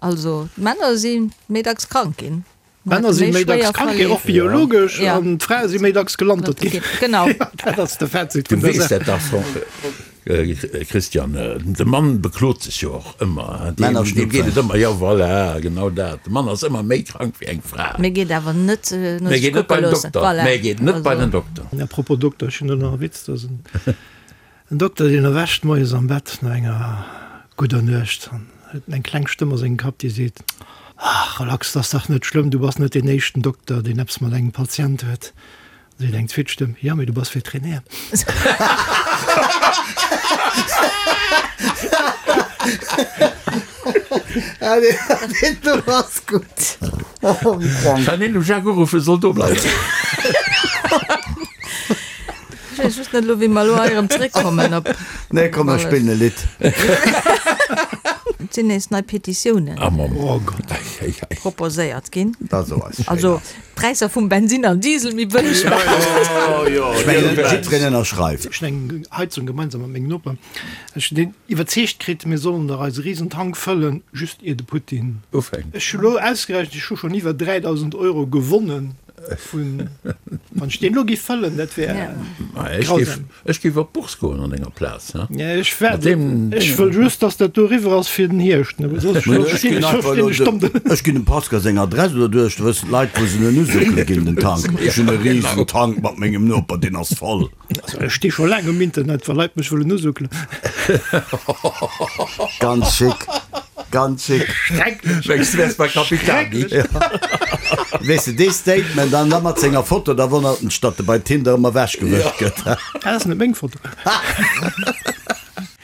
Speaker 1: Also d'Männer si méi dacks krank ginn.
Speaker 4: D'Männer si méi dacks krank ginn, och biologesch, an d'Frae si méi dacks gelantert ginn.
Speaker 1: Genau.
Speaker 4: Dat ass de Fazit
Speaker 2: vun der Saach. Du weess dat dach, Christian. De Mann beklot sech jo och ëmmer. Deem geet et ëmmer, jo voilà, genau dat. De Mann ass ëmmer méi krank wéi eng Fra.
Speaker 1: Mee geet awer net
Speaker 2: no sech kucke loossen. Voilà. Mee geet net bei den Dokter.
Speaker 4: A propos Dokter, ech hunn do nach e Witz. Dat ass en Dokter, deen erwächt moies am Bett no enger gudder Nuecht an huet eng kleng Stëmm a sengem Kapp, déi seet, Ach, relax, 't ass dach net schlëmm, du bass net deen éischten Dokter, deen eppes mat engem Patient huet. Da seet eng zweet Stëmm, Jo, mee du bass Veterinär.
Speaker 3: Deen do ass gutt.
Speaker 2: Wann een dem Jacques uruffen soll do bleiwen.
Speaker 1: Ech weess just net elo wéi mer elo hei erëm zréckkommen op.
Speaker 3: Nee komm mer spillen e Lidd.
Speaker 1: Et sinn nees nei Petitiounen
Speaker 2: Oh Gott.
Speaker 1: proposéiert ginn.
Speaker 3: Dat ass och eis
Speaker 1: Also d'Präisser vum Bensin an Diesel méi bëlleg maachen.
Speaker 3: Ech mengen jiddwereen ënnerschreift.
Speaker 4: Ech hunn eng Heizung gemeinsam mat mengem Noper. Ech hunn deen iwwerzeegt kritt, mir sollen dach eise Risentank fëllen, just ier de Putin
Speaker 2: ufänkt.
Speaker 4: Ech hu lo ausgerechent, ech hu schonn iwwer 3.000 Euro gewonnen vun, wann ech deen elo géif fëllen, dat wär
Speaker 2: grausam. Ech géif op d'Bourse goen an denger Plaz.
Speaker 4: Ech waart, ech wëll just, datt dat do eriwwer ass fir den Hierscht, soss stinn ech domm do.
Speaker 3: Ech ginn dem Pascal seng Adress oder duerch, da wëssen d'Leit, wou se en usuckele ginn, den Tank. Ech hunn e Risentank mat mengem Noper, deen ass voll.
Speaker 4: Also ech sti scho laang um Internet, wa Leit mech wëllen usuckelen.
Speaker 3: Ganz chic, ganz chic.
Speaker 4: Schrecklech.
Speaker 2: Mengs du wärs bei Capitani?
Speaker 3: Weess de, dee Statement an da mat senger Foto, da wonnert en sech, datt e bei Tinder ëmmer ewechgewëscht gëtt.
Speaker 4: Dat ass net meng Foto.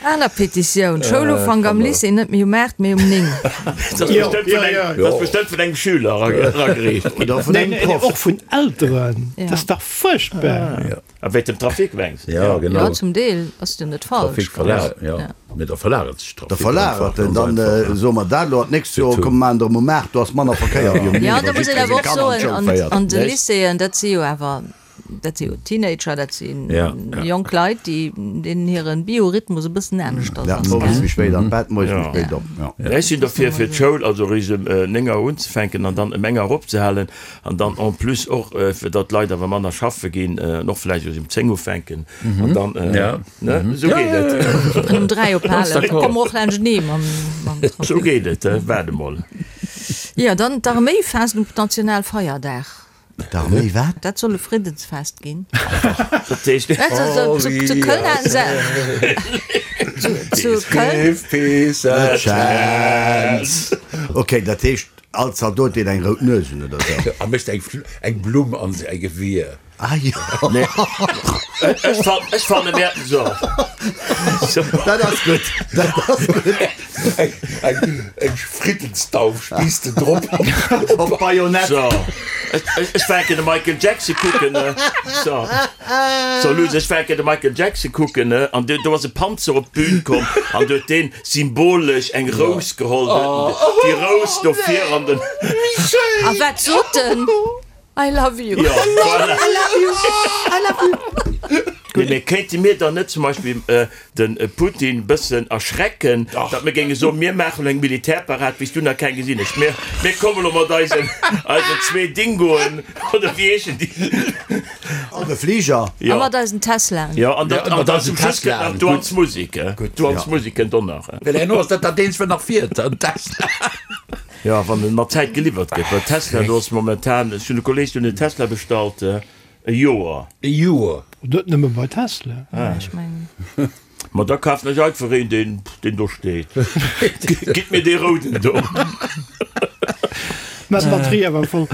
Speaker 1: Aner Petitioun, Schoulufank am Lycée net méi um 8, mee um 9.
Speaker 5: Dat ass bestëmmt vun engem, dat ass bestëmmt vun engem Schüler eragereecht
Speaker 3: ginn. Oder vun engem Proff.
Speaker 4: Och vun Elteren. Dat ass dach fuerchtbar.
Speaker 5: A wéint dem Trafic mengs
Speaker 2: de? Ja, genau.
Speaker 1: Jo, zum Deel ass jo net falsch.
Speaker 2: Trafic verlagert, jo. Mee da verlagert sech
Speaker 3: Trafic. Da verlagert en. Dann soe mer dat elo an d'nächst Joer komme mer erëm um 8, do ass manner Verkéier wéi um 9,
Speaker 1: Jo, da
Speaker 3: well
Speaker 1: muss een
Speaker 3: jiddweree
Speaker 1: awer
Speaker 3: seng
Speaker 1: och
Speaker 3: Kanner an
Speaker 1: soen,
Speaker 3: d'Schoul
Speaker 1: an,
Speaker 3: féiert.
Speaker 1: an de Lycéeën, dat si jo awer Dat si jo Teenager, dat si jonk Leit, déi, deenen hire Biorhythmus e bëssen anescht ass.
Speaker 3: Ja, owes méi spéit an d'Bett, moies méi spéit op. Ja.
Speaker 5: Ech sinn derfir, fir d'Schoul also eréischt ëm 9 Auer unzefänken an dann ëm eng Auer opzehalen an dann en plus och, fir datt d'Leit awer manner schaffe ginn, an och vläicht eréischt ëm 10 ufänken an dann, ne, esou geet et.
Speaker 1: An um 3 ophalen, da komme mer och laanschtenee mam Trafic.
Speaker 5: Esou geet et, waart emol.
Speaker 1: Jo, dann d'Arméi faasst um Nationalfeierdag.
Speaker 3: D'Arméi wat?
Speaker 1: Dat soll e Friddensfest ginn.
Speaker 5: Dat heescht.
Speaker 1: Zu Köln haten se. Zu Köln.
Speaker 2: Give peace a chance.
Speaker 3: Ok, dat heescht all Zaldot deen eng rout Nues hunn oder sou?
Speaker 2: A mécht eng Blumm an säi Gewier.
Speaker 3: Ah jo.
Speaker 5: Ech fanne mir so.
Speaker 3: Dat ass gutt, dat ass gutt.
Speaker 2: Eng Friddensdauf spiisst en drop.
Speaker 3: Op d'Bajonett.
Speaker 5: So, ech war de Michael Jackson kucken. So, so Luss, ech war de Michael Jackson kucken an do ass e Panzer op d'Bün komm an huet deen symbolesch eng Rous geholl, déi Rous do vir an den.
Speaker 1: A wat sot en? I love you.
Speaker 5: Ja, voilà.
Speaker 1: I love you. I love you.
Speaker 5: Nee, mee kéinte mir dann net zum Beispill de Putin bëssen erschrecken, datt mir géinge soen, mir maachen elo eng Militärparad, wéi s du nach keng gesinn hues. Mir, mir komme lo mat eisen, eisen zwee Dingoen, oder wéi heeschen déi?
Speaker 3: An de Fliger.
Speaker 1: A mat eisen Teslaen.
Speaker 5: Jo, an dat,
Speaker 2: Ja,
Speaker 5: an dann zum Schluss kënnt
Speaker 2: Teslaen.
Speaker 5: nach d'Duanz Musik, d'Duanz Musik kënnt och nach.
Speaker 2: Well herno ass dat dat eenzegt, wat nach fiert, en Tesla.
Speaker 5: Jo, wann en mat Zäit geliwwert gëtt, well Tesla, do ass momentan, ech hunn e Kolleeg, deen huet en Tesla bestallt, e Joer.
Speaker 2: E Joer?
Speaker 4: Net nëmme bei Tesla.
Speaker 1: Ech mengen.
Speaker 5: Ma da kafen ech einfach een, deen, deen do steet. Gitt mir dee rouden do.
Speaker 4: Mä d'Batterie awer voll.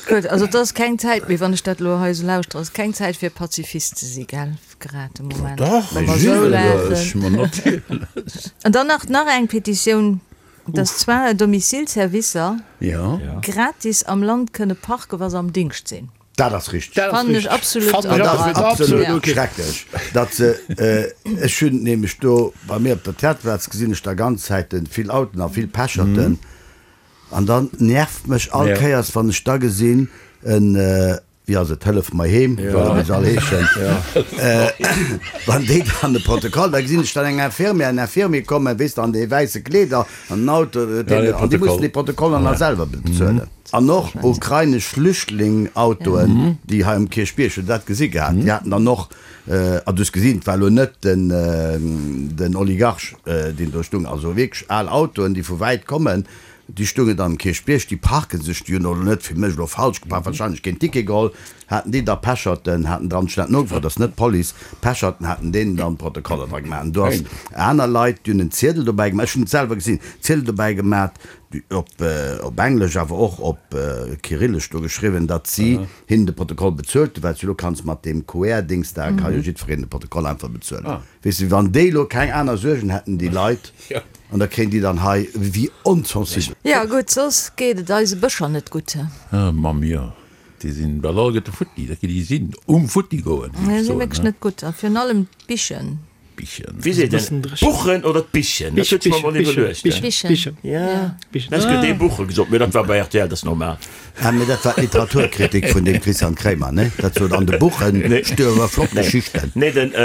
Speaker 1: Gutt, also et ass keng Zäit méi, wann ech dat elo hei esou lauschtere, ass keng Zäit fir Pazifist ze si, gell, grad de Moment.
Speaker 2: Dach,
Speaker 1: Wa mer esou laachen.
Speaker 2: natierlech.
Speaker 1: An dann nach, nach eng Petitioun. Dass Soins à domicile Servicer gratis am Land kënne parken, wa se am Dingscht sinn.
Speaker 3: Dat ass richteg.
Speaker 1: Fannen ech absolut.
Speaker 3: Dat ass absolut schrecklech, datt se, ech hunn nämlech do bei mir op der Theaterplaz gesinn ech da ganz Zäiten vill Autoen a vill Pecherten an dann nervt mech all Kéiers wann ech da gesinn en. Wéi ass et, Hëllef mer heem, oder wéi se all heeschen, wann déi dann de Protokoll, da gesinn ech dann eng Infirmière, en Infirmier kommen, weess de, an deene wäisse Kleeder, an den Auto, an déi mussen déi Protokoller nach selwer bezuelen. An och ukrainesch Flüchtling-Autoen, déi hei um Kierchbierg, hutt Der dat gesi gehat, déi haten dann och, a du hues gesinn, et war elo net den, den Oligarch, deen do stung, also wierklech al Autoen, déi vu wäit kommen, Déi stoungen dann um Kierchbierg, déi parken sech, déi hunn elo net, fir mech elo falsch geparkt, wahrscheinlech keen Ticket geholl, haten déi da Pecherten, haten dran, ech hunn dat nogefrot, dat ass net d'Police, Pecherten haten deenen dann d'Protokoller dra gemaach. An do ass aner Leit, déi hunn en Ziedel dobäi gemaach, ech hunn et selwer gesinn, Ziedel dobäi gemaat, op op Englesch, awer och op Kyrillesch do geschriwwen, datt si hinnen de Protokoll bezuelt hunn, well s du elo kanns mat deem QR-Dings da, ka jo jiddwereen de Protokoll einfach bezuelen. Weess de, wann déi elo keng aner Suergen hätten, déi Leit. An da kréien déi dann hei, wéi onsensibel.
Speaker 1: Jo gutt, soss geet et eise Bëscher net gutt.
Speaker 2: Ah Mamm, jo, déi sinn bal alleguerte futti, dat déi sinn um futti goen,
Speaker 1: géif ech soen. Wierklech net gutt, a virun allem d'Bichen.
Speaker 2: Bichen.
Speaker 5: Wéi seet een, d'Buchen oder d'Bichen? Dat huet ech mer emol iwwerluecht.
Speaker 1: Bichen.
Speaker 5: Ja, ech hunn dee Buche gesot, mee dat war bei rtl, dat ass normal.
Speaker 3: Ah, mee dat war d'Literaturkritik vun dem Christian Kremer, ne? Dat sot, an de Buchen stuerwe flott Geschichten.
Speaker 5: Nee, den,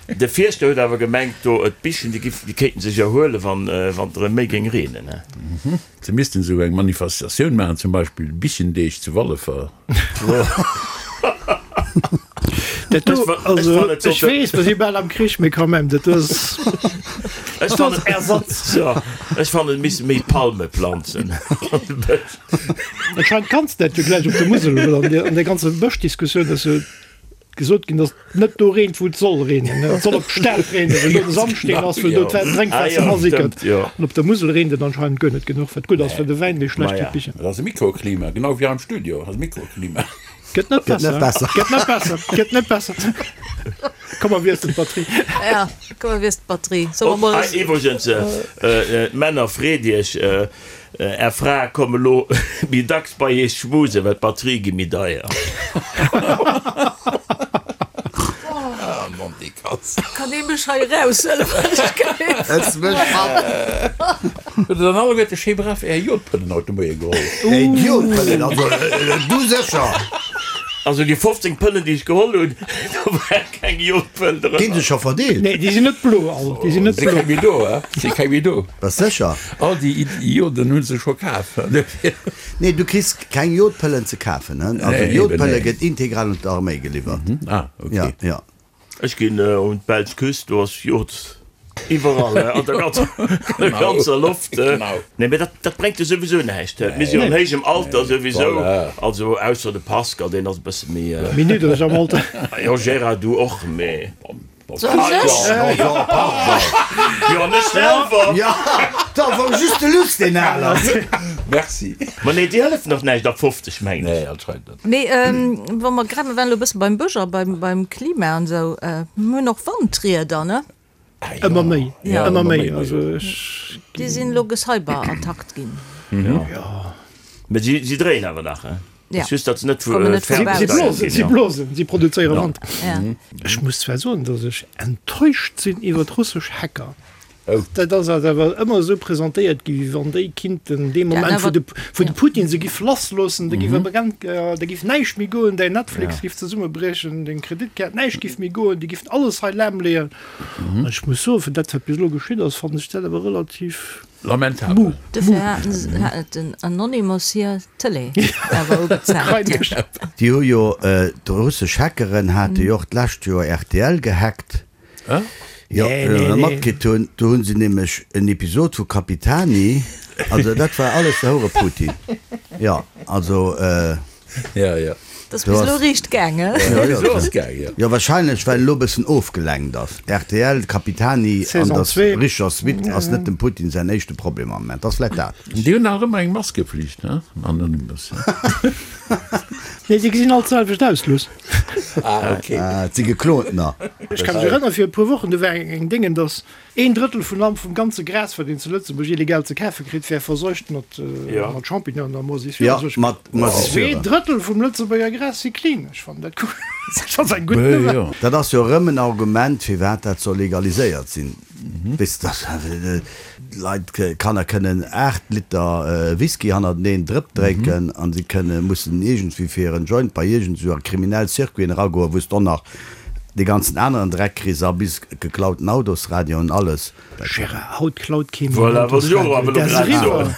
Speaker 5: de Fierschter huet awer gemengt, do, d'Bichen, déi giff, déi kéinten sech erhuelen, wann, wann et erëm méi géing reenen, ne?
Speaker 2: Se missten esou eng Manifestatioun maachen, zum Beispill Bichendeeg zu Wallefer.
Speaker 4: Dat do, also, ech weess, mer si bal am Krich, mee quand même, dat do ass,
Speaker 5: Ech
Speaker 4: dat ass
Speaker 5: fannen,
Speaker 4: Ersatz.
Speaker 5: jo, ech fannen, et misste méi Palme planzen an de Bësch.
Speaker 4: Anscheinend kanns de dat jo gläich op der Musel, well an der, an der ganzer Bëschdiskussioun ass jo gesot ginn, datt et net do reent, wou et soll reenen. Et soll op d'Stad reenen, well do de Sandsteen ass, well do d'Drénkwaasser
Speaker 5: Ah jo,
Speaker 4: asickert.
Speaker 5: stëmmt, jo.
Speaker 4: An op der Musel reent et anscheinend guer net genuch, wat gutt ass fir de Wäin, mee schlecht fir
Speaker 5: Maja.
Speaker 4: d'Bichen.
Speaker 2: Dat ass e Mikroklima, genau wéi hei am Studio, ass e Mikroklima.
Speaker 4: Gëtt net besser. Gëtt net besser. Gëtt net besser. Komm mer wiesselen d'Batterie.
Speaker 1: Ja, komm mer wiesselen d'Batterie. Solle mer mol.
Speaker 5: Hei iwwregens, Männer, freet iech, Är Frae komme lo méi dacks bei iech schmusen, well d'Batterie gi méi deier.
Speaker 1: Kann ee mech hei eraushuelen, wann ech géif?
Speaker 3: Ëss mech mat!
Speaker 2: Hutt der dann alleguerte schéi brav är Jodpëllen haut de Moie geholl?
Speaker 3: Är Jodpëllen, also du sécher!
Speaker 5: Also déi 15 Pëllen, déi ech geholl hunn, do war keng Jodpëll drënner.
Speaker 3: Ginn se scho verdeelt?
Speaker 4: Nee, déi sinn net blo all, déi sinn net
Speaker 2: Si
Speaker 4: blo.
Speaker 2: keng méi do, he? Si keng méi do.
Speaker 3: Bass sécher?
Speaker 2: All déi Joden hu se scho kaf.
Speaker 3: Nee, du kriss keng Jodpëllen ze kafen, he? Also
Speaker 2: Nee, eben,
Speaker 3: Jodpëlle
Speaker 2: nee.
Speaker 3: gëtt integral un d'Arméi geliwwert.
Speaker 2: Ah, ok.
Speaker 3: Ja, ja.
Speaker 5: Ech ginn un d'belsch Küst, do ass Jod iwwerall, an der ganzer, an der ganzer Loft. Nee, mee dat, dat bréngt jo souwisou näischt. Mir si jo an héijem Alter souwisou, also ausser de Pascal, deen ass e bësse méi.
Speaker 4: Méi niddreg am Alter.
Speaker 5: Jo, Gérard, du och, mee.
Speaker 1: Soss ech?
Speaker 5: Jo, an ech selwer.
Speaker 3: Jo, da wor just de Luss deen al ass.
Speaker 2: Merci.
Speaker 5: Ma nee, déi hëllefen och näischt ab 50, mengen ech.
Speaker 2: Nee, anscheinend net.
Speaker 1: Mee wa mer grad, mer waren elo e bësse beim Bësch a beim, beim Klima an esou, mir hunn och Wandrieder, ne?
Speaker 4: Ëmmer méi,
Speaker 1: Ja.
Speaker 4: ëmmer méi. Also ech.
Speaker 1: Déi sinn elo gecyberattackt ginn.
Speaker 4: Jo.
Speaker 5: Mee si, si dréien awer nach, hein?
Speaker 1: Ja.
Speaker 5: Just, datt se net vu
Speaker 1: Kommen net
Speaker 4: Si, si
Speaker 1: vorbei.
Speaker 4: blosen, si blosen, si produzéiere Wand.
Speaker 1: Ja.
Speaker 4: Ech muss zwar soen, datt ech enttäuscht sinn iwwer russesch Hacker.
Speaker 2: Oh.
Speaker 4: Dat ass eis awer ëmmer esou presentéiert gi wéi wann déi kinnten dee Moment, wou de, wou de Putin se giff lassloossen, da giff e da giff näischt méi goen, däin Netflix giff zesummebriechen, deng Kreditkaart, näischt giff méi goen, déi giffen alles hei lahmleeën. An ech muss soen, fir dat wat bis elo geschitt ass, fannen ech dat awer relativ
Speaker 2: Lamentabel.
Speaker 4: mou.
Speaker 1: Dofir haten se, hat den Anonymous hir Tëlee awer ugezaapt.
Speaker 3: Déi hu jo, d'russesch Hackeren hate jo och d'lescht Joer rtl gehackt. Jo, matkritt hunn, do hunn se nämlech en Episod vu Capitani, also dat war alles de Houre Putin, jo, also.
Speaker 2: Ja, ja.
Speaker 1: Dat ass bis elo riicht gaangen.
Speaker 3: Jo, wahrscheinlech well elo bëssen ofgelenkt ass. Rtl, Capitani an der richer Suite ass net dem Putin säin éischte Problem am Moment. Ass vläit dat.
Speaker 2: Déi hunn nach ëmmer eng Maskeflicht, ne? Anonymous.
Speaker 4: Nee, déi gesinn all d'selwecht aus, Luss.
Speaker 2: Ah, okay.
Speaker 3: Ah, et si geklontener.
Speaker 4: Ech ka mech erënnere fir e puer Wochen, do war eng Déngen, datt een Drëttel vun allem, vum ganze Gras, wat een zu Lëtzebuerg illegal ze kafe kritt, wär verseucht mat Champignonen a Moisissure.
Speaker 3: Ja, mat Moisissure.
Speaker 4: Zwee Drëttel vum Lëtzebuerger Gras si clean. Ech fannen dat gutt. Dat ass eng gutt Nouvelle.
Speaker 3: Dat ass jo erëm en Argument, firwat dat soll legaliséiert sinn. Weess de, dat. Leit, Kanner kënnen 8 Liter Whisky hannerteneen Drëpp drénken an si kënnen, mussen iergendwéi fir en Joint bei iergend esou a kriminell Circuiten eragoen, wou s de och nach dee ganzen aneren Dreck kriss a bis geklauten Autosradioen, alles.
Speaker 4: Gérard, haut klaut kee méi en Autosradio. Dat ass eriwwer.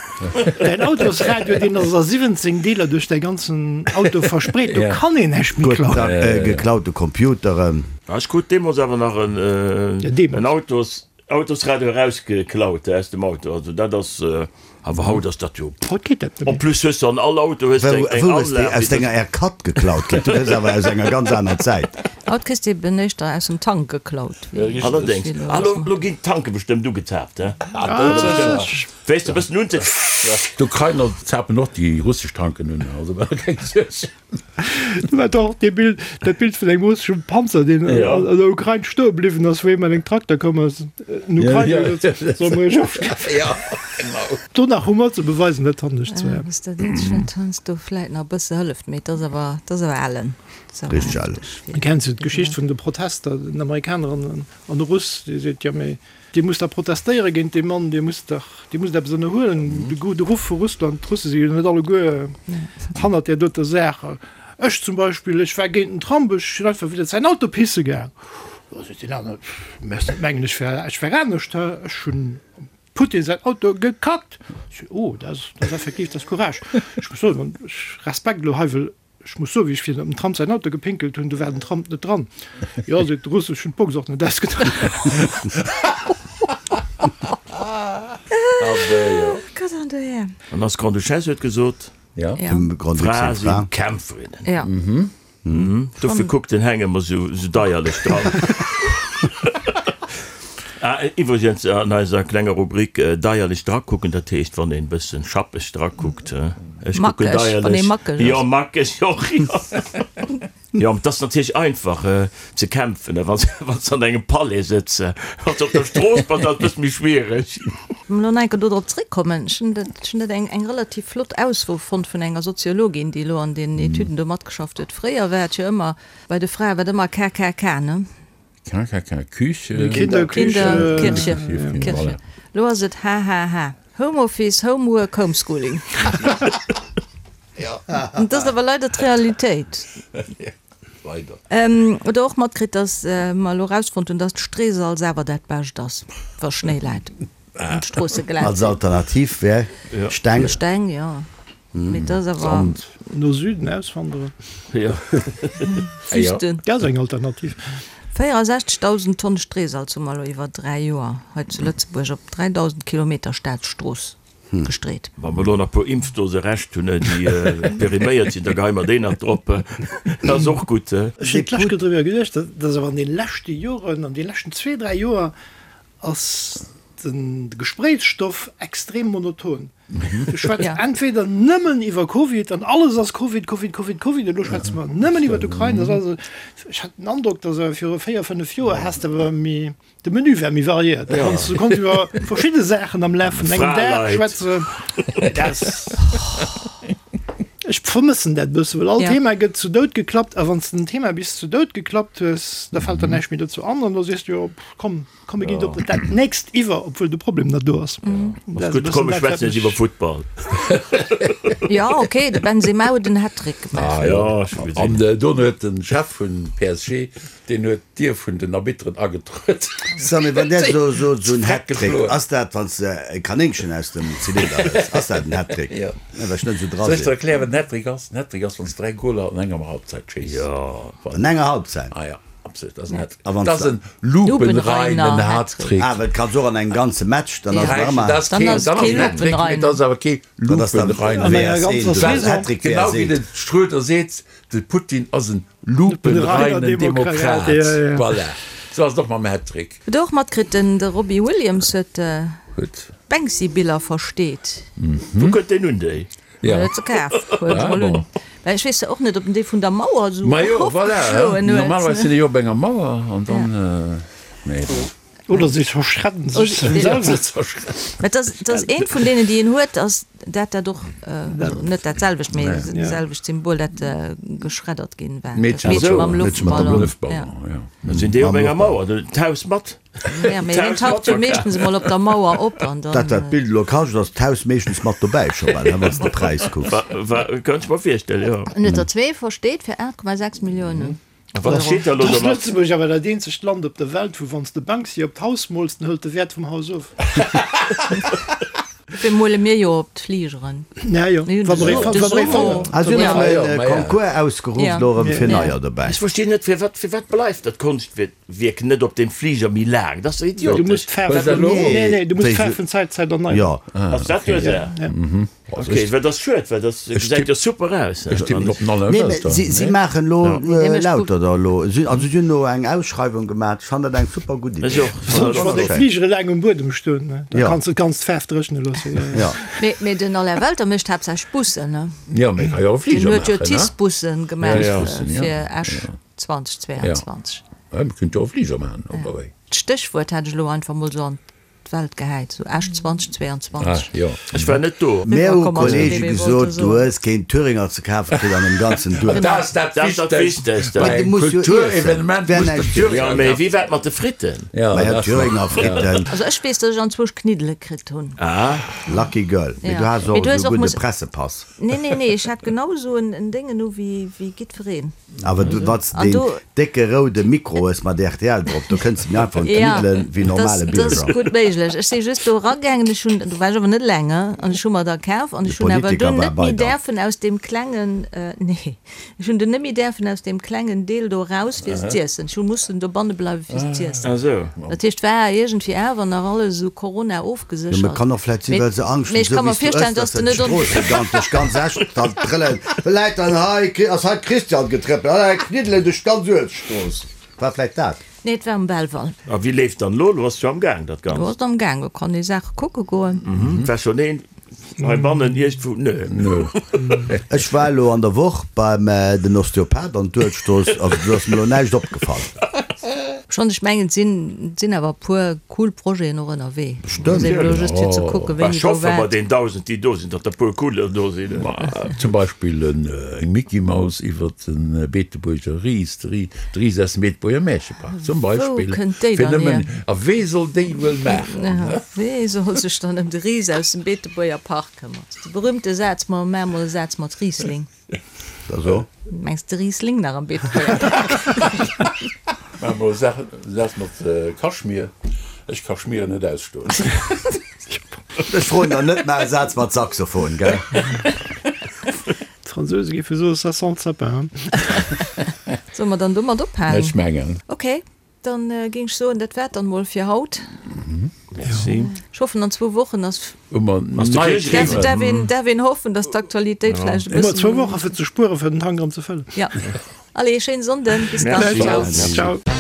Speaker 4: Däin Autosradio, deen ass a 17 Deeler duerch däi ganzen Auto verspreet. Do kann een näischt méi klauen.
Speaker 3: Geklaute Computeren.
Speaker 5: Ech krut deemools awer nach en Autosradio erausgeklaut aus dem Auto. Also dat ass. Awer haut ass dat jo.
Speaker 4: Haut geet dat net méi.
Speaker 5: En plus hues de an all Auto hues de eng
Speaker 3: Wou hues de
Speaker 5: Anlag.
Speaker 3: aus denger R4 geklaut kritt? Du hues awer aus enger ganz aner Zäit.
Speaker 1: Haut kriss de eben éischter aus dem Tank geklaut wéi.
Speaker 5: Allerdéngs. Ah lo lo ginn d'Tanke bestëmmt ugezaapt, he? Wéis de bëssen unze.
Speaker 2: D'Ukrainer zapen och déi russesch Tanken un, also keng Suerg.
Speaker 4: Du war doch dee Bild, dat Bild vun engem russeschem Panzer, deen an der Ukrain stoe bliwwen ass, wou ee mat engem Trakter komm ass. En Ukrainer huet gesot, Solle mer iech ofschiessen?
Speaker 2: Ja, genau.
Speaker 4: Do nach Humor ze beweisen, dat fannen ech zwar.
Speaker 1: Ass dat eenzegt, wat heiansdo vläit nach e bësse hëlleft, mee et ass awer, et ass awer ellen. Et ass awer
Speaker 3: Richteg ellen.
Speaker 1: hefteg.
Speaker 4: Kenns du d'Geschicht vun de Protester, den Amerikaner an de Russ, dee seet, Jo, mee Dir musst da protestéiere géint dee Mann, Dir musst dach, Dir musst eppes ënnerhuelen. De gudde Ruff vu Russland, d'Russe si jo net alleguer hannert där doter Saach. Ech zum Beispill, ech war géint den Trump, ech sinn einfach widder säin Auto pisse gaang. Da seet deen anere, Mess net mengen, ech wär, ech wär anescht, hä? Ech hunn dem Putin säin Auto gekackt. Ech sot, Oh, dat ass, dat ass effektiv, dat ass Courage. Ech muss soen, ech Respekt elo hei, well Ech muss soen, wéi ech virun dem Trump säin Auto gepinkelt hunn, do war den Trump net dran. Jo, seet de Russ, ech hunn d'Box och net ausgedréint.
Speaker 5: An eis Grande-Duchesse huet gesot, Frae si Kämpferinnen. Dofir kuckt den Heng ëmmer sou deierlech dran. Ah, iwwregens an eiser klenger Rubrik deierlech drakucken, dat heescht wann een bëssen schappeg drakuckt, ech kucken deierlech, jo mackeg och, jo. Jo, et ass natierlech einfach ze kämpfen, wann s de an engem Palais sëtz. Wann s de op der Strooss bass, ass et bësse méi schwiereg.
Speaker 1: Lo nach eng Kéier dodrop zréckkommen, ech hunn dat, ech hunn dat eng, eng relativ flott Ausso fonnt vun enger Soziologin, déi elo an deenen Etüden do matgeschafft huet. Fréier war et jo ëmmer, bei de Frae war et ëmmer KKK, ne?
Speaker 2: KKK, Küche,
Speaker 4: Kinder,
Speaker 1: Kinder, Kirche, Kirche. Lo ass et HHH, Home Office, Homework, Homeschooling. Dat ass awer leider d'Realitéit.
Speaker 2: Leider.
Speaker 1: Oder och matkritt, dass mer elo erausfonnt hunn, dass d'Streesalz awer dat Bescht ass, wa Schnéi läit an d'Stroosse glat
Speaker 3: Als Alternativ wär Steng.
Speaker 1: Steng, jo. Mee dat ass awer.
Speaker 2: Sand.
Speaker 4: No Süden auswanderen.
Speaker 5: Jo.
Speaker 1: Wüsten.
Speaker 4: Dat ass eng Alternativ.
Speaker 1: 64.000 Tonn Streesalz hu mer elo iwwer 3 Joer hei zu Lëtzebuerg op 3.000 Kilometer Staatsstrooss gestreet.
Speaker 5: Wa mer elo nach e puer Impfdose Rescht hunn, déi periméiert sinn, da geheie mer déi nach drop. Dat ass och gutt.
Speaker 4: Ech hunn d'lescht Kéier driwwer geduecht, dass awer an de leschte Joren, an de leschten zwee, dräi Joer ass de Gespréichsstoff extrem monoton. Du schwätz entweder nëmmen iwwer Covid an alles ass Covid, Covid, Covid, Covid, elo schwätze mer nëmmen iwwer d'Ukrain. Ech hat den Androck, dass awer viru véier, fënnef Joer has de awer méi, De Menü war méi variéiert, da konns du konns iwwer verschidde Saachen am Laf vun engem Dag schwätzen. Dat Ech vermëssen dat bësse, well all
Speaker 1: Ja.
Speaker 4: Thema gëtt zu Doud geklappt a wann s de en Thema bis zu Doud geklappt hues, da fält der näischt méi dozou an an da sees du jo, pff, komm, komm mir ginn op dat nächst iwwer, obwuel de Problem nach do ass. Dat
Speaker 5: Ass
Speaker 4: ass e
Speaker 5: gutt,
Speaker 4: bëssen
Speaker 5: komm mir
Speaker 4: dat, wat
Speaker 5: schwätzen jetzt
Speaker 4: mech.
Speaker 5: iwwer Futtball.
Speaker 1: Ja, okay, de Benzema huet en Hattrick gemaach.
Speaker 2: Ah,
Speaker 5: Ja, ech hu gesinn.
Speaker 2: An dono huet de Chef vun PSG Deen huet d'Dier vun den Arbitteren agetruet.
Speaker 3: So, mee wann där so sot, esou en
Speaker 2: Hattrick,
Speaker 3: Hattrick, ass dat wann s de e Kanéngchen aus dem Zylinder hëls, ass dat en Hattrick?
Speaker 2: Jo.
Speaker 3: Well ech net esou dra
Speaker 2: Soll ech der
Speaker 3: sinn.
Speaker 2: erklären, wat en Hattrick ass? En Hattrick ass, wann s de 3 Goler an enger Halbzeit schéiss.
Speaker 5: Jo.
Speaker 3: An enger Halbzeit?
Speaker 2: Ah ja, absolut, dat ass en Hattrick.
Speaker 3: A wann
Speaker 2: Dat
Speaker 3: s
Speaker 2: ass
Speaker 3: de.
Speaker 2: en lupenreinen Hattrick.
Speaker 3: Ah, well et kanns och an engem ganze Match, dann ass et nach ëmmer.
Speaker 2: Dat ass
Speaker 1: Dann
Speaker 2: keen,
Speaker 1: ass et
Speaker 2: dann ass
Speaker 1: kee
Speaker 2: en Hattrick, mee
Speaker 1: lupenreinen.
Speaker 2: dat ass awer kee
Speaker 3: Dat ass dann
Speaker 2: lupenreinen.
Speaker 4: An enger
Speaker 3: VS
Speaker 4: ganzer
Speaker 3: 1, dat ass
Speaker 4: Saison.
Speaker 3: Hattrick
Speaker 2: Genau
Speaker 3: VS
Speaker 2: wéi
Speaker 3: 1.
Speaker 2: de Schröder seet, de Putin ass en Lupenreinen Demokrat. Voilà. Sou ass et och mam Hattrick.
Speaker 1: Hutt der och matkritt, den de Robbie Williams huet d'Banksy-Biller versteet.
Speaker 5: Wou kënnt deen un déi?
Speaker 1: Jo. Huet se kaf, huet se mol un. Well ech weess jo och net, ob en déi vun der Mauer esou
Speaker 2: Majo, voilà.
Speaker 1: erofgeschloen huet.
Speaker 2: Normalerweis sinn déi jo op enger Mauer an dann, nee.
Speaker 4: Oder si verschredden sech selwer.
Speaker 1: Mä et ass, et ass eent vun deenen, déi een huet, ass dat dat och, also net dat selwecht, mee dat selwecht Symbol, dat geschreddert ginn war. Dat Meedche mam Loftballon.
Speaker 5: Ja. Dann sinn déi op enger Mauer, d'Haus mat.
Speaker 1: Ja, mee hien taucht jo meeschtens emol op der Mauer op an dann.
Speaker 3: Dat wat d'Bild elo kascht, ass d'Haus meeschtens mat dobäi scho bal, wann s de de Präis kucks.
Speaker 5: Wa, kann ech mer virstellen, jo.
Speaker 1: En huet der zwee versteet fir 8,6 Milliounen.
Speaker 5: A wat steet da elo
Speaker 4: Ass
Speaker 5: domat?
Speaker 4: Lëtzebuerg awer dat eenzegt Land op der Welt, wou wann s de Banksy op d'Haus mools, den hëlt de Wäert vum Haus of.
Speaker 1: Dofir mole mir jo op d'Fligeren.
Speaker 4: Ja jo,
Speaker 1: Mir hunn
Speaker 4: wa mer ee
Speaker 1: de
Speaker 4: wa mer ee
Speaker 1: Sumo.
Speaker 4: fannen.
Speaker 3: Ah, si hunn
Speaker 1: Ja.
Speaker 3: erëm e Concours ausgeruff elo erëm fir neier dobäi.
Speaker 5: Ech verstinn net, firwat firwat bleift dat Konschtwierk net op dem Fliger méi laang? Dat ass doch
Speaker 4: Du muss
Speaker 5: idiotesch.
Speaker 4: d'Faarf, nee, nee, du muss d'Faarf vun Zäit zu Zäit erneieren.
Speaker 3: Jo.
Speaker 5: Ass dat d'Ursaach? Ok, well dat ass schued, well dat gesäit jo super aus.
Speaker 2: Ech tippen op den Alain
Speaker 3: Nee,
Speaker 2: Welter.
Speaker 3: si, si maachen elo lauter der elo. Si, also si hunn elo eng Ausschreiwung gemaach. Ech fannen dat eng super gutt Idee.
Speaker 5: Ech och.
Speaker 4: Besonnesch wann déi Fligere laang um Buedem stoen, ne? Da
Speaker 3: Ja.
Speaker 4: kanns de d'ganz d'Faarf dréchne loossen.
Speaker 3: Ja.
Speaker 1: Mee, mee den Alain Welter mécht haaptsächlech Bussen, ne?
Speaker 2: Jo, mee ka jo och
Speaker 1: Den
Speaker 2: Fliger
Speaker 1: huet jo
Speaker 2: maachen, ne?
Speaker 1: TICE-Bussen gemaach
Speaker 2: Ja, ja.
Speaker 1: fir Esch 2022.
Speaker 2: Ja, mee kéint jo och Fliger maachen, oder wéi?
Speaker 1: D'Stéchwuert hat ech elo einfach mol sou an D'Welt gehäit, sou Esch 2022.
Speaker 2: Ah, jo.
Speaker 5: Ech war net do.
Speaker 3: Mär hu Kollege
Speaker 1: Wollt
Speaker 3: gesot,
Speaker 1: soen.
Speaker 3: du hues keen Thüringer ze kafe kritt an dem ganzen Duerf.
Speaker 2: Dat ass dat
Speaker 5: Dat ass dat
Speaker 2: Wichtegst
Speaker 5: Wichtegst.
Speaker 2: bei
Speaker 3: Mä du
Speaker 2: engem
Speaker 3: muss jo iessen.
Speaker 2: Kulturevenement,
Speaker 3: Wär
Speaker 2: muss de
Speaker 3: näischt
Speaker 2: Thüringer
Speaker 5: Jo, mee
Speaker 2: kafen.
Speaker 5: wéi war et mat de Fritten?
Speaker 2: Ja,
Speaker 3: Ma ja,
Speaker 2: dat
Speaker 3: Thüringer Fritten.
Speaker 1: Also ech weess, datt ech anzwousch Kniddele kritt hunn.
Speaker 5: Ah.
Speaker 3: Lucky girl. Mee
Speaker 1: Ja.
Speaker 3: du has
Speaker 1: Mee
Speaker 3: och
Speaker 1: du hues
Speaker 3: esou
Speaker 1: och
Speaker 3: gudde
Speaker 1: muss.
Speaker 3: Pressepass.
Speaker 1: Nee, nee, nee, ech hat genau esou en Déngen u wéi jiddwereen.
Speaker 3: Awer du, wann s de
Speaker 1: An
Speaker 3: deen
Speaker 1: do.
Speaker 3: décke roude Mikro hues mat rtl drop, do kënns de méi einfach un
Speaker 1: Ja,
Speaker 3: d'Kniddelen wéi
Speaker 1: dat
Speaker 3: normale
Speaker 1: dat ass
Speaker 3: Bierger.
Speaker 1: gutt méiglech. Ech si just do eragaangen, ech hunn, do war ech awer net eleng, an ech hu mer der kaf an
Speaker 3: De
Speaker 1: ech hunn awer
Speaker 3: Politiker
Speaker 1: dunn
Speaker 3: war
Speaker 1: net
Speaker 3: bei
Speaker 1: méi
Speaker 3: der.
Speaker 1: däerfen aus deem klengen, nee, ech hunn dunn net méi däerfen aus deem klengen Deel do eraus fir se z'iessen. Ech hu mussen dobanne bleiwe fir se z'iessen.
Speaker 5: Ah sou.
Speaker 1: Dat heescht, war iergendwéi awer nach alles esou Corona
Speaker 3: Jo, mee
Speaker 1: ofgeséchert.
Speaker 3: kann och vläit sinn,
Speaker 1: Mee,
Speaker 3: well se Angscht
Speaker 1: mee
Speaker 3: hunn,
Speaker 1: ech
Speaker 3: esou
Speaker 1: ka
Speaker 3: wéi
Speaker 1: mer
Speaker 3: s du
Speaker 1: virstellen,
Speaker 3: ëss,
Speaker 1: dass
Speaker 3: dass
Speaker 1: de
Speaker 3: se
Speaker 1: net on.
Speaker 3: d'Stroosse ganz duerch ganz Esch dann trëllen. Vläit dann hei ass hei d'Christian getrëppelt, ah hei kniddelen duerch d'ganz Uelzechtstrooss. War vläit dat.
Speaker 1: Nee, et war um Belval.
Speaker 5: A wéi leeft dann elo? Elo ass et jo am Gaang, dat
Speaker 1: Elo
Speaker 5: Ganzt.
Speaker 1: ass et am Gaang, do kann ee Saache kucke goen.
Speaker 5: Et war schonn een heibannen iergendwou? Nö.
Speaker 3: Ech war elo an der Woch beim den Osteopath an d'Uelzechtstrooss, also do ass mir elo näischt opgefall.
Speaker 1: Schonn, ech mengen, et sinn, et sinn awer e puer cool Projeten och ënnerwee.
Speaker 3: Bestëmmt.
Speaker 1: Ass eben elo just fir ze kucken, wéini
Speaker 5: Ech
Speaker 1: wou
Speaker 5: hoffe bei
Speaker 1: wat.
Speaker 5: den 1.000, déi do sinn, datt der e puer cooler do sinn.
Speaker 2: Zum Beispill eng Micky Maus iwwer de Beetebuerger Ris, de Ris aus dem Beetebuerger Märchepark zum
Speaker 1: Wou
Speaker 2: Beispill.
Speaker 1: kënnt déi
Speaker 2: Fir
Speaker 1: dann
Speaker 2: nëmmen,
Speaker 1: hier?
Speaker 2: a wee soll déi wuel maachen?
Speaker 1: Wee soll sech dann ëm de Ris aus dem Beetebuerger Park këmmern? De berühmte Saz, Ma maach mol e Saz mat Riesling.
Speaker 3: Da so.
Speaker 1: Mengs de Riesling nach am Beetebuerger Park?
Speaker 2: Maach mol e Saz mat Kaschmir. Ech ka Schmieren net ausstoen.
Speaker 3: Ech froen der net, maach e Saz mat Saxophon, gell?
Speaker 4: D'Fransouse géife soen, ça sent le sapin.
Speaker 1: Solle mer dann domat ophalen?
Speaker 2: Ech mengen.
Speaker 1: Ok, dann géing ech soen, dat war et dann mol fir haut.
Speaker 5: Merci.
Speaker 1: Ech hoffen, an zwou Wochen ass.
Speaker 2: Hu mer nei
Speaker 1: Däerf, däerf een, däerf een hoffen, dass d'Aktualitéit vläicht e
Speaker 4: Hu mer zwou
Speaker 1: bëssen.
Speaker 4: Woche fir ze spueren, fir den Tank erëm ze fëllen.
Speaker 1: Ja. Allez, schéine Sonnden. Bis dann.
Speaker 4: Ciao. Ciao.